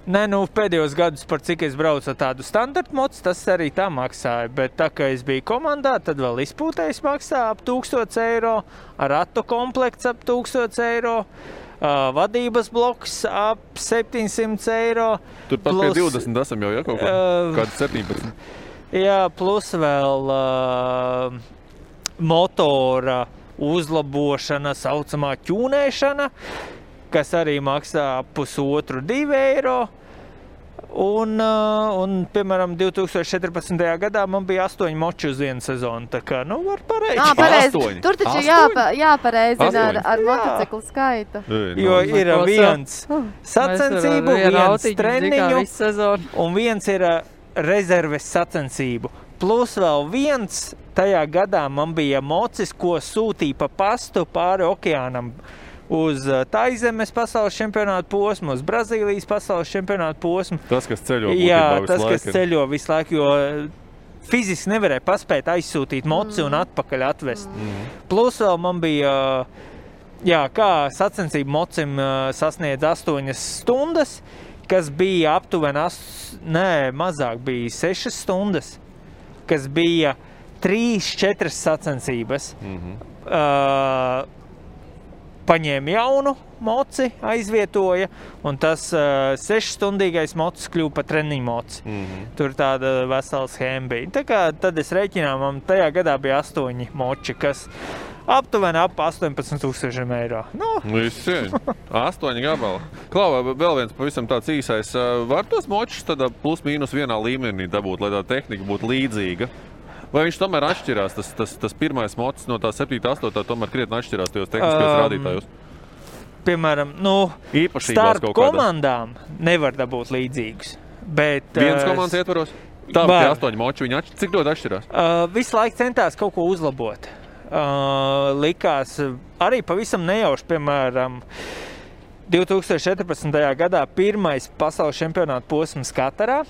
Nē, nu, pēdējos gadus, par cik es braucu ar tādu standartu mocu, tas arī tā maksāja. Bet tā, kā es biju komandā, tad vēl izpūtējs maksā ap 1000 eiro, ratu komplekts ap 1000 eiro, vadības bloks ap 700 eiro. Turpat pie 20 esam jau, ja, kaut kādi 17. Jā, plus vēl motora uzlabošana, saucamā ķūnēšana, kas arī maksā 1,5–2 eiro. Un, piemēram, 2014. gadā man bija 8 moči uz vienu sezonu. Tā kā, nu, var pareizi. Tur taču jāpareizina ar motociklu skaitu. Jo ir viens sacensību, viens treniņu un viens ir rezerves sacensību. Plus vēl viens, tajā gadā man bija mocis, ko sūtīja pa pastu pāri okeānam uz Taizemes pasaules čempionātu posmu, uz Brazīlijas pasaules čempionātu posmu. Tas, kas ceļo kas ceļo visu laiku, jo fiziski nevarēja paspēt aizsūtīt moci un atpakaļ atvest. Plus vēl man bija, kā sacensību mocim sasniedz 8 stundas, kas bija aptuveni, mazāk bija 6 stundas, kas bija 3–4 sacensības. paņēma jaunu moci, aizvietoja, un tas 6-stundīgais mocis kļuva par treniņu moci. Tur tāda vesela schēma bija. Tā kā tad es rēķinām, man tajā gadā bija 8 moči, kas aptuveni ap 18,000 eiro. Viss cieņ. 8 gabali. Klau, vēl viens pavisam tāds īsais. Var tos močus tādā plus mīnus vienā līmenī dabūt, lai tā tehnika būtu līdzīga? Vai viņš tomēr atšķirās? Tas pirmais mocis no tā 7, 8 tomēr krietni atšķirās tajos tehniskajos rādītājos? Piemēram, starp komandām nevar dabūt līdzīgus. Bet, viens komandas ietvaros? Tā tie 8 moči, viņi cik ļoti atšķirās? Visu laiku centās kaut ko uzlabot. Likās arī pavisam nejauši, piemēram, 2014. gadā pirmais pasaules čempionāta posms Katarā.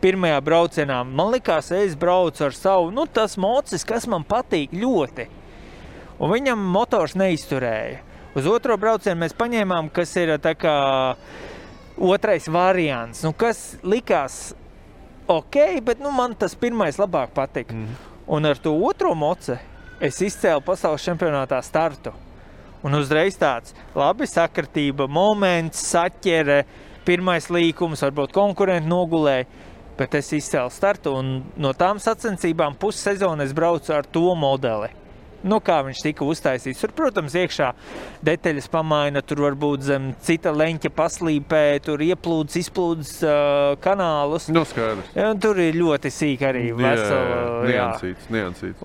Pirmajā braucienā man likās, es braucu ar savu, tas mocis, kas man patīk ļoti. Un viņam motors neizturēja. Uz otro braucienu mēs paņēmām, kas ir tā kā otrais variants, kas likās ok, bet man tas pirmais labāk patika. Un ar to otro moci es izcēlu pasaules čempionātā startu. Un uzreiz tāds labi sakritība, moments, saķere, pirmais līkums, varbūt konkurenti nogulēja. Bet es izcēlu startu, un no tām sacensībām pussezonu es braucu ar to modeli. Kā viņš tika uztaisīts. Tur, protams, iekšā detaļas pamaina, tur varbūt zem cita leņķa paslīpē, tur ieplūdes, izplūdes kanālus. Skaidrs. Tur ir ļoti sīk arī vesela. Niansīts.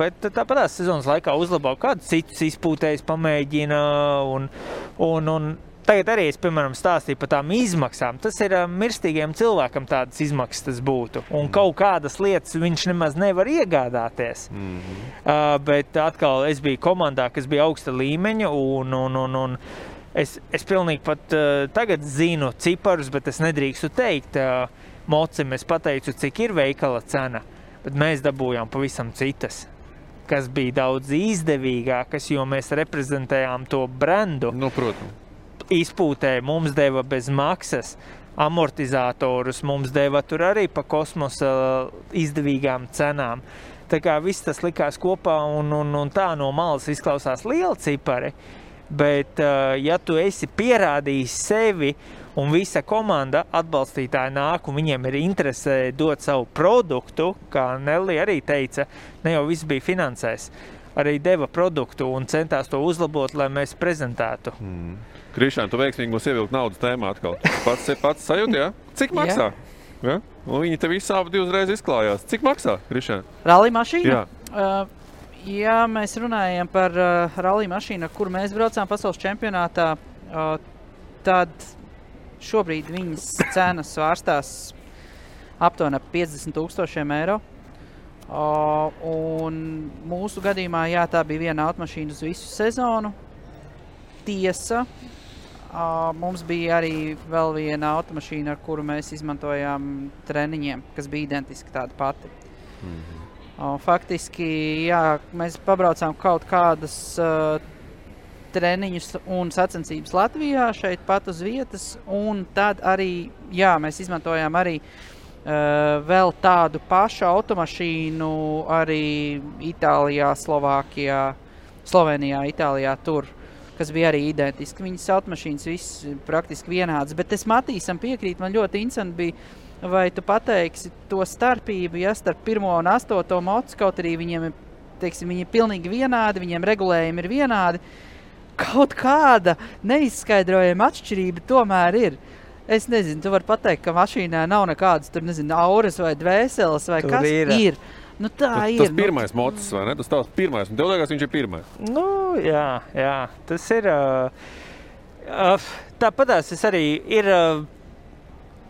Bet tāpatās sezonas laikā uzlabo kādu citus izpūtējus pamēģina, un tagad arī es, piemēram, stāstīju par tām izmaksām. Tas ir mirstīgiem cilvēkam tādas izmaksas tas būtu. Un kaut kādas lietas viņš nemaz nevar iegādāties. Bet atkal es biju komandā, kas bija augsta līmeņa, un es pilnīgi pat tagad zinu ciparus, bet es nedrīkstu teikt mocim. Es pateicu, cik ir veikala cena, bet mēs dabūjām pavisam citas, kas bija daudz izdevīgākas, jo mēs reprezentējām to brendu. Protams. Izpūtē mums deva bez maksas amortizatorus, mums deva tur arī pa kosmosa izdevīgām cenām. Tā kā viss tas likās kopā un tā no malas izklausās liela cipari, bet ja tu esi pierādījis sevi un visa komanda atbalstītāji nāk un viņiem ir interese dot savu produktu, kā Nelli arī teica, ne jau viss bija finansēs, arī deva produktu un centās to uzlabot, lai mēs prezentētu. Krišān, tu veiksmīgi mums ievilkt naudas tēmā atkal. Pats sajūti, jā? Cik maksā? Ja? Un viņi te visi abi divreiz izklājās. Cik maksā, Krišān? Rallija mašīna? Jā. Ja mēs runājam par rallija mašīnu, kur mēs braucām pasaules čempionātā, tad šobrīd viņas cenas svārstās aptuveni 50,000 eiro. Un mūsu gadījumā, tā bija viena automašīna uz visu sezonu. Tiesa, mums bija arī vēl viena automašīna, ar kuru mēs izmantojām treniņiem, kas bija identiski tāda pati. Faktiski, mēs pabraucām kaut kādas treniņus un sacensības Latvijā, šeit pat uz vietas, un tad arī, mēs izmantojām arī vēl tādu pašu automašīnu arī Itālijā, Slovākijā, Slovenijā, Itālijā tur, kas bija arī identiski. Viņas automašīnas viss praktiski vienādas, bet es Matīsam piekrīt, man ļoti interesanti bija, vai tu pateiksi to starpību, starp 1. un 8. mocu, kaut arī viņiem, viņi ir pilnīgi vienādi, viņiem regulējumi ir vienādi. Kaut kāda neizskaidrojama atšķirība tomēr ir. Es nezinu, tu vari pateikt, ka mašīnā nav nekādas, auras vai dvēseles vai tur kas ir. Tā ir. Tas pirmais mocis, vai ne? Tas tavs pirmais, un tev liekas, viņš ir pirmais. Jā. Tas ir... Tāpatās es arī ir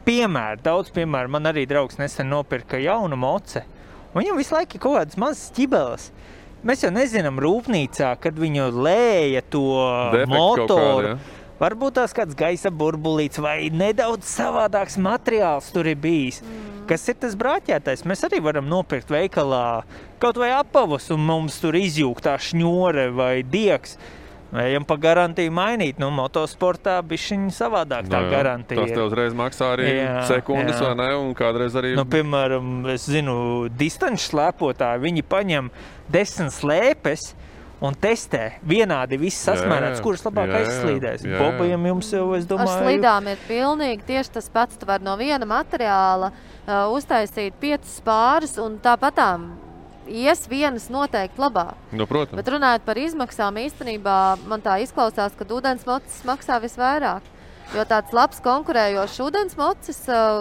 piemēri, daudz piemēru. Man arī draugs nesen nopirka jaunu moci. Un viņam visu laiku ir kaut kādas mazas ķibeles. Mēs jau nezinām rūpnīcā, kad viņu lēja to motoru. Varbūt tās kāds gaisa burbulīts vai nedaudz savādāks materiāls tur ir bijis. Kas ir tas brāķētais? Mēs arī varam nopirkt veikalā kaut vai apavus un mums tur izjūg tā šņore vai diegs. Ejam pa garantiju mainīt. Motosportā bišķiņ savādāk tā garantija. Tas tev uzreiz maksā arī sekundes, vai ne? Un kādreiz arī... Piemēram, es zinu, distanču slēpotāji, viņi paņem 10 slēpes un testē vienādi viss sasmērēts, kurš labāk aizslīdēs. Bobajam jums jau, es domāju... Ar slidām ir pilnīgi tieši tas pats. Tu var no viena materiāla uztaisīt 5 pārus, un tāpatām ies vienas noteikti labāk. Nu, protams. Bet runājot par izmaksām, īstenībā man tā izklausās, ka ūdensmocis maksā visvairāk. Jo tāds labs konkurējošs ūdensmocis,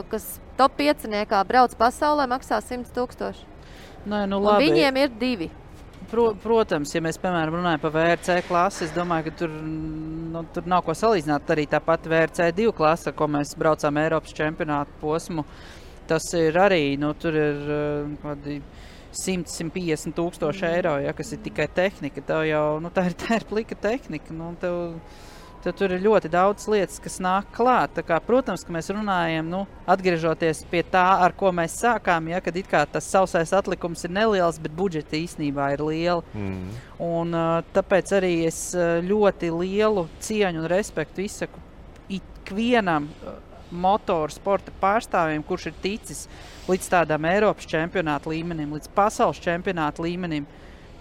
kas top 5-niekā brauc pasaulē, maksā 100 000. Nē, nu un labi. viņiem ir 2. Protams, ja mēs, piemēram, runājam par VRC klasi, es domāju, ka tur nav ko salīdzināt. Arī tāpat VRC 2 klasa, ko mēs braucām Eiropas čempionātu posmu, tas ir arī, tur ir kādi 100–150 000 eiro, ja, kas ir tikai tehnika. Tev jau, tā ir plika tehnika. Tev tur ir ļoti daudz lietas, kas nāk klāt. Tā kā, protams, ka mēs runājam, atgriežoties pie tā, ar ko mēs sākām, ja, kad it kā tas sausais atlikums ir neliels, bet budžeti īstenībā ir lieli. Un tāpēc arī es ļoti lielu cieņu un respektu izsaku ikvienam motorsporta pārstāvjiem, kurš ir ticis līdz tādām Eiropas čempionāta līmenim, līdz pasaules čempionāta līmenim.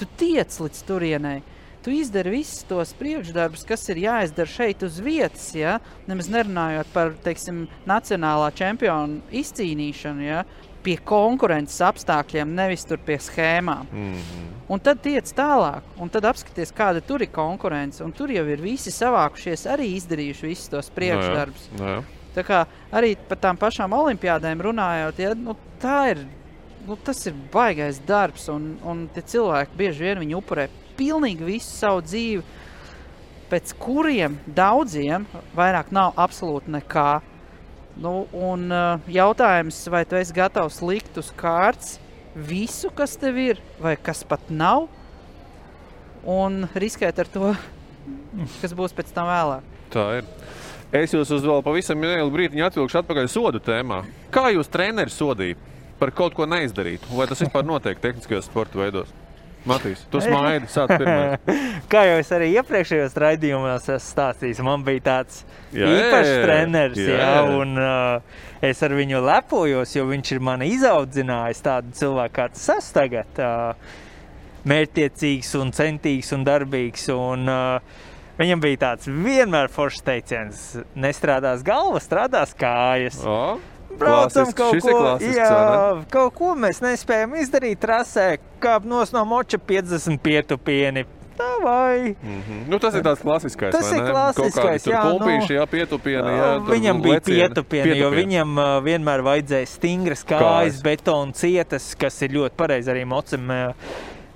Tu tiec līdz turienei. Tu izdari visus tos priekšdarbus, kas ir jāizdara šeit uz vietas, ja? Nemaz nerunājot par, teiksim, nacionālā čempionu izcīnīšanu, ja? Pie konkurences apstākļiem, nevis tur pie schēmām. Un tad tiec tālāk, un tad apskaties, kāda tur ir konkurence, un tur jau ir visi savākušies, arī izdarījuši visus tos priekšdarbus. Tā kā arī par tām pašām olimpiādēm runājot, ja? Tas ir baigais darbs, un tie cilvēki bieži vien viņi upurē pilnīgi visu savu dzīvi, pēc kuriem daudziem vairāk nav absolūti nekā. Un jautājums, vai tu esi gatavs likt uz kārts visu, kas tev ir, vai kas pat nav, un riskēt ar to, kas būs pēc tam vēlāk. Tā ir. Es jūs uz vēl pavisam nelielu brītiņu atvilkšu atpakaļ sodu tēmā. Kā jūs treneri sodīja par kaut ko neizdarītu? Vai tas vispār notiek tehniskajos sporta veidos? Matīs, tu smaidi, sāc pirmais. Kā jau es arī iepriekšējos raidījumos esmu stāstījis, man bija tāds īpašs treneris, un es ar viņu lepojos, jo viņš ir mani izaudzinājis tādu cilvēku, kā tas es tagad, mērķtiecīgs un centīgs un darbīgs, un viņam bija tāds vienmēr foršs teiciens, nestrādās galva, strādās kājas. Braucam kaut ko mēs nespējam izdarīt trasē, kāp nos no moča 50 pietupieni. Tā vai? Tas ir tāds klasiskais, tas vai ne? Tas ir klasiskais, jā. Tur pulpīši, pietupieni, viņam bija pietupieni, jo viņam vienmēr vajadzēja stingras kājas, betona cietas, kas ir ļoti pareizi arī mocam.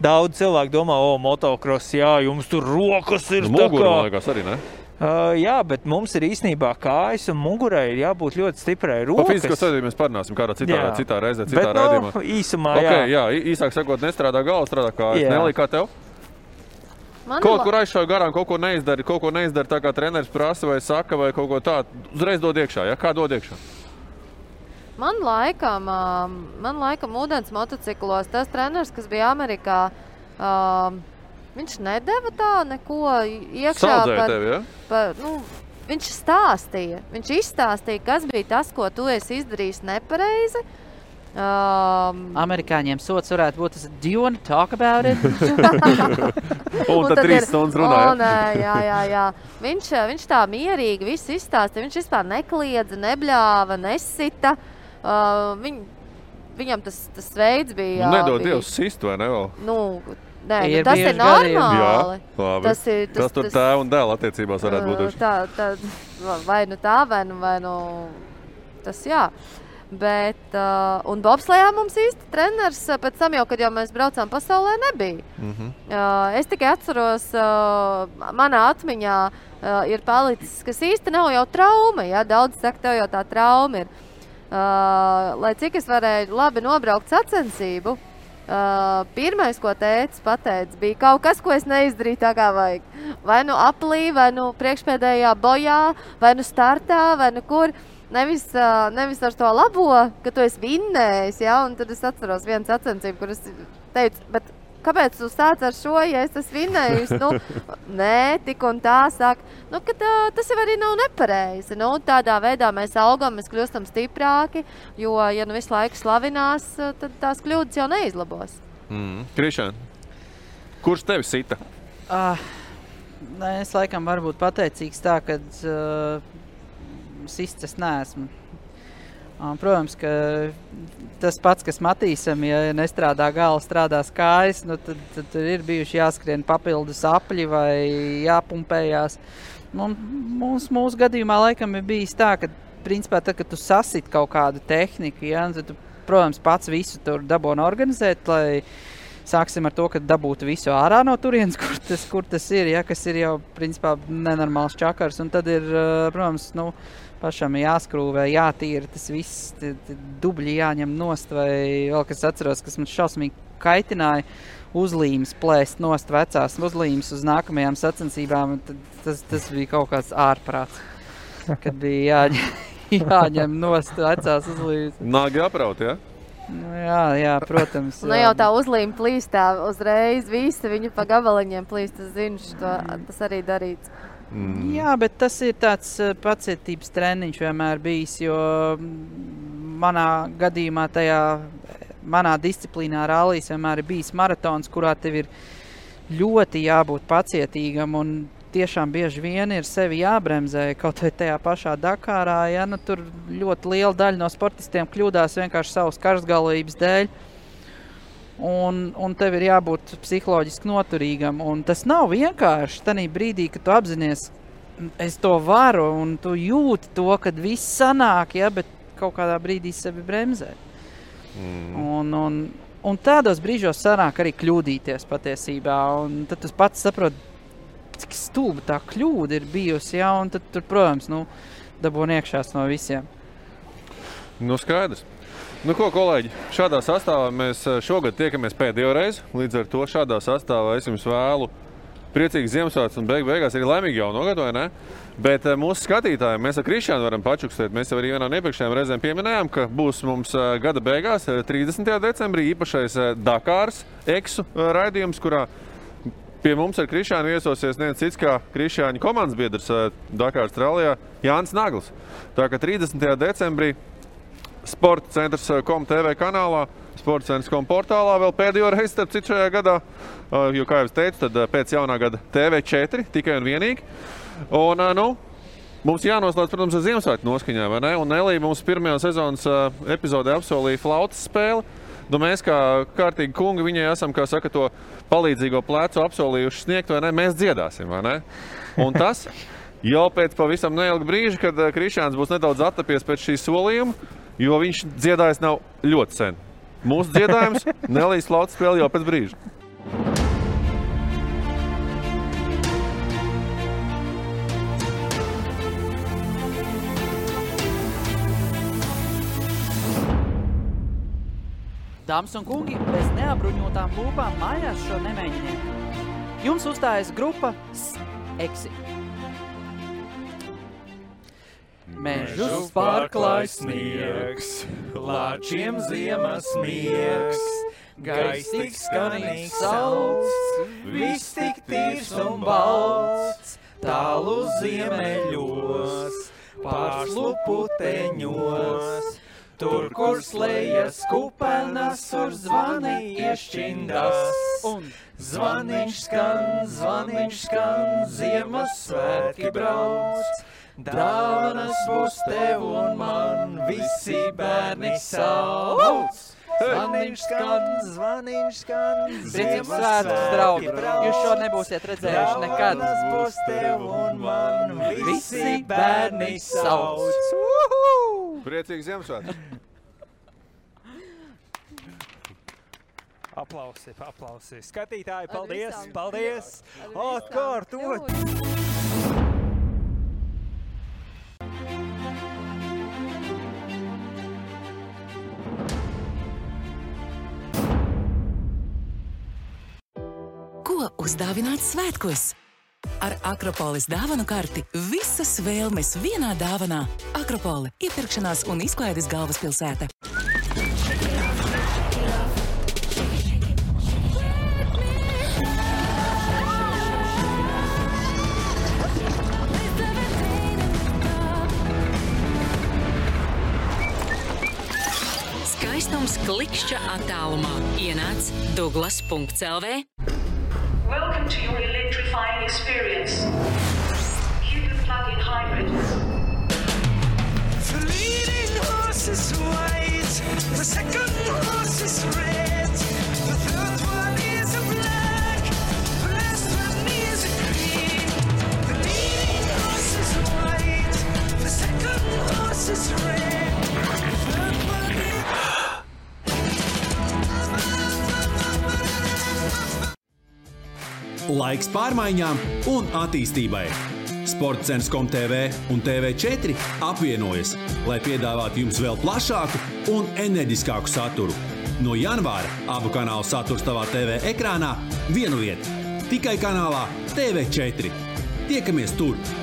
Daudz cilvēku domā, motocross, jums tur rokas ir tā kā. Mugura, man liekas, arī, ne? Jā, bet mums ir īstenībā kājas un mugurai ir jābūt ļoti stiprai rokas. Par fizisko sadarbību mēs parunāsim kādā citā reizē, citā raidījumā. Bet, īsumā, jā, īsāk sakot, nestrādā galva, strādā kājas. Nelī, kā tev? Kaut kur aizšauj garām, kaut ko neizdari tā, kā treneris prasa vai saka, vai kaut ko tādu. Uzreiz dod iekšā, ja? Kā dod iekšā? Man laikam ūdens motociklos tas treneris, kas bija Amerikā, viņš nedeva tā neko iekšā. Saudzēja tevi, ja? Viņš stāstīja. Viņš izstāstīja, kas bija tas, ko tu esi izdarījis nepareizi. Amerikāņiem sots varētu būt tas, do you want to talk about it? Un tad 3 stundas runāja. Jā. Viņš tā mierīgi visu izstāstīja. Viņš vispār nekliedza, nebļāva, nesita. Viņam tas veids bija... Nedod Dievs sist, vai ne vēl? Tas ir normāli. Jā, labi. Tas tur tēva un dēla attiecībās varētu būt. Vai tas jā. Bet, un bobslejā mums īsti treneris pēc tam jau, kad mēs braucām pasaulē, nebija. Es tikai atceros, manā atmiņā ir palicis, kas īsti nav jau trauma. Ja? Daudz saka, tev jau tā trauma ir. Lai cik es varēju labi nobraukt sacensību, pirmais, ko tētis pateica, bija kaut kas, ko es neizdarīju tā kā vajag. Vai nu aplī, vai nu priekšpēdējā bojā, vai nu startā, vai nu kur. Nevis ar to labo, ka tu esi vinnējis, ja? Un tad es atceros vienu sacensību, kur es teicu, bet kāpēc tu sāc ar šo, ja es esmu vinnējis? Nē, tik un tā saka, ka tas jau arī nav nepareizi. Tādā veidā mēs augam, mēs kļūstam stiprāki, jo, ja visu laiku slavinās, tad tās kļūdas jau neizlabos. Krišān, kurš tevi sita? Es laikam varu būt pateicīgs tā, kad sists es neesmu. Protams, ka tas pats, kas Matīsam, ja nestrādā gala, strādās kājas, nu, tad ir bijuši jāskrien papildus apļi vai jāpumpējās. Mūsu gadījumā laikam ir bijis tā, ka principā tad, kad tu sasit kaut kādu tehniku, ja, tad tu, protams, pats visu tur dabūni organizēt, lai sāksim ar to, ka dabūtu visu ārā no turienes, kur tas ir, ja, kas ir jau principā nenormāls čakars. Un tad ir, protams, pašam jāskrūvē, jātīra tas viss, dubļi jāņem nost, vai vēl, kas atceros, kas man šausmīgi kaitināja, uzlīmes plēst nost vecās uzlīmes uz nākamajām sacensībām. Tas bija kaut kāds ārprāts, kad bija jāņem nost vecās uzlīmes. Nāgi apraut, ja? Jā, protams. Jau tā uzlīme plīst tā uzreiz, visi viņu pa gabaliņiem plīst, tas zinu, tas arī darīts. Jā, bet tas ir tāds pacietības treniņš vienmēr bijis, jo manā gadījumā manā disciplīnā rallijas vienmēr ir bijis maratons, kurā tev ir ļoti jābūt pacietīgam un tiešām bieži vien ir sevi jābremzē, kaut vai tajā pašā Dakārā, ja, tur ļoti liela daļa no sportistiem kļūdās vienkārši savas karstgalvības dēļ. Un tev ir jābūt psiholoģiski noturīgam. Un tas nav vienkārši tanī brīdī, kad tu apzinies, es to varu, un tu jūti to, kad viss sanāk, ja, bet kaut kādā brīdī sevi bremzē. Un tādos brīžos sanāk arī kļūdīties patiesībā. Un tad tu pats saproti, cik stulba tā kļūda ir bijusi, ja, un tad tur, protams, dabūni iekšās no visiem. Skaidrs. Ko, kolēģi, šādā sastāvā mēs šogad tiekamies pēdējo reizi. Līdz ar to šādā sastāvā es jums vēlu priecīgas Ziemassvētkus un beigās arī laimīgu jauno gadu, vai ne? Bet mūsu skatītājiem mēs ar Krišjānu varam pačukstēt. Mēs jau arī vienā no iepriekšējām reizēm pieminējām, ka būs mums gada beigās, 30. decembrī, īpašais Dakāras eksu raidījums, kurā pie mums ar Krišjānu viesosies neviens cits kā Krišjāņa komandas biedrs Dakāras rallijā Jānis Nagls. Tā kā 30. decembrī Sporta centrs.com TV kanālā, Sporta centrs.com portālā vēl pēdējo reizi, starp citu šajā gadā, jo, kā jau es teicu, tad pēc jaunā gada TV4 tikai un vienīgi. Un, mums jānoslēdz, protams, ar Ziemassvētku noskaņā, vai ne? Un Elija mums pirmajā sezonas epizodē apsolīja flautas spēli. Mēs kā kārtīgi kungi viņai esam, kā saka, to palīdzīgo plecu apsolījuši sniegt, vai ne? Mēs dziedāsim, vai ne? Un tas jau pēc pavisam neilga brīža, kad Krišjāns būs nedaudz attapies pēc šī solījuma, jo viņš dziedājis nav ļoti sen. Mūsu dziedājums Nelijas flautas spēle jau pēc brīža. Dāmas un kungi, bez neapbruņotām lūpām mājās šo nemēģiniet. Jums uzstājas grupa Eksi. Mežus pārklāj sniegs, lāčiem ziemas miegs, gaiss tik skanīgs sauts, viss tik tīrs un balts, tālu ziemeļos, pārslu puteņos, tur, kur slējas kupenas, tur zvani iešķindas. Zvaniņš skan, Ziemassvētki brauc. Dāvanas būs tev un man, visi bērni sauc. Zvaniņš skan, Ziemassvētkus, draugi, jūs šo nebūsiet redzējuši nekad. Dāvanas būs tev un man, visi bērni sauc. Priecīgi Ziemassvētki! Aplausi. Skatītāji, paldies! Atkārtot! Ko uzdāvināt svētkos? Ar Akropolis dāvanu karti visas vēlmes vienā dāvanā. Akropole – iepirkšanās un izklaides galvaspilsēta. Skaistums klikšķa attālumā. Ienāc Douglas.lv. Welcome to your electrified electrifying experience. Cupid plug-in hybrid. The leading horse is white, the second horse is red, the third one is a black, the last one is a green. The leading horse is white, the second horse is red, the third one is... Laiks pārmaiņām un attīstībai. Sportcens.com.tv un TV4 apvienojas, lai piedāvātu jums vēl plašāku un enerģiskāku saturu. No janvāra abu kanālu saturs tavā TV ekrānā vienu vietu. Tikai kanālā TV4. Tiekamies tur!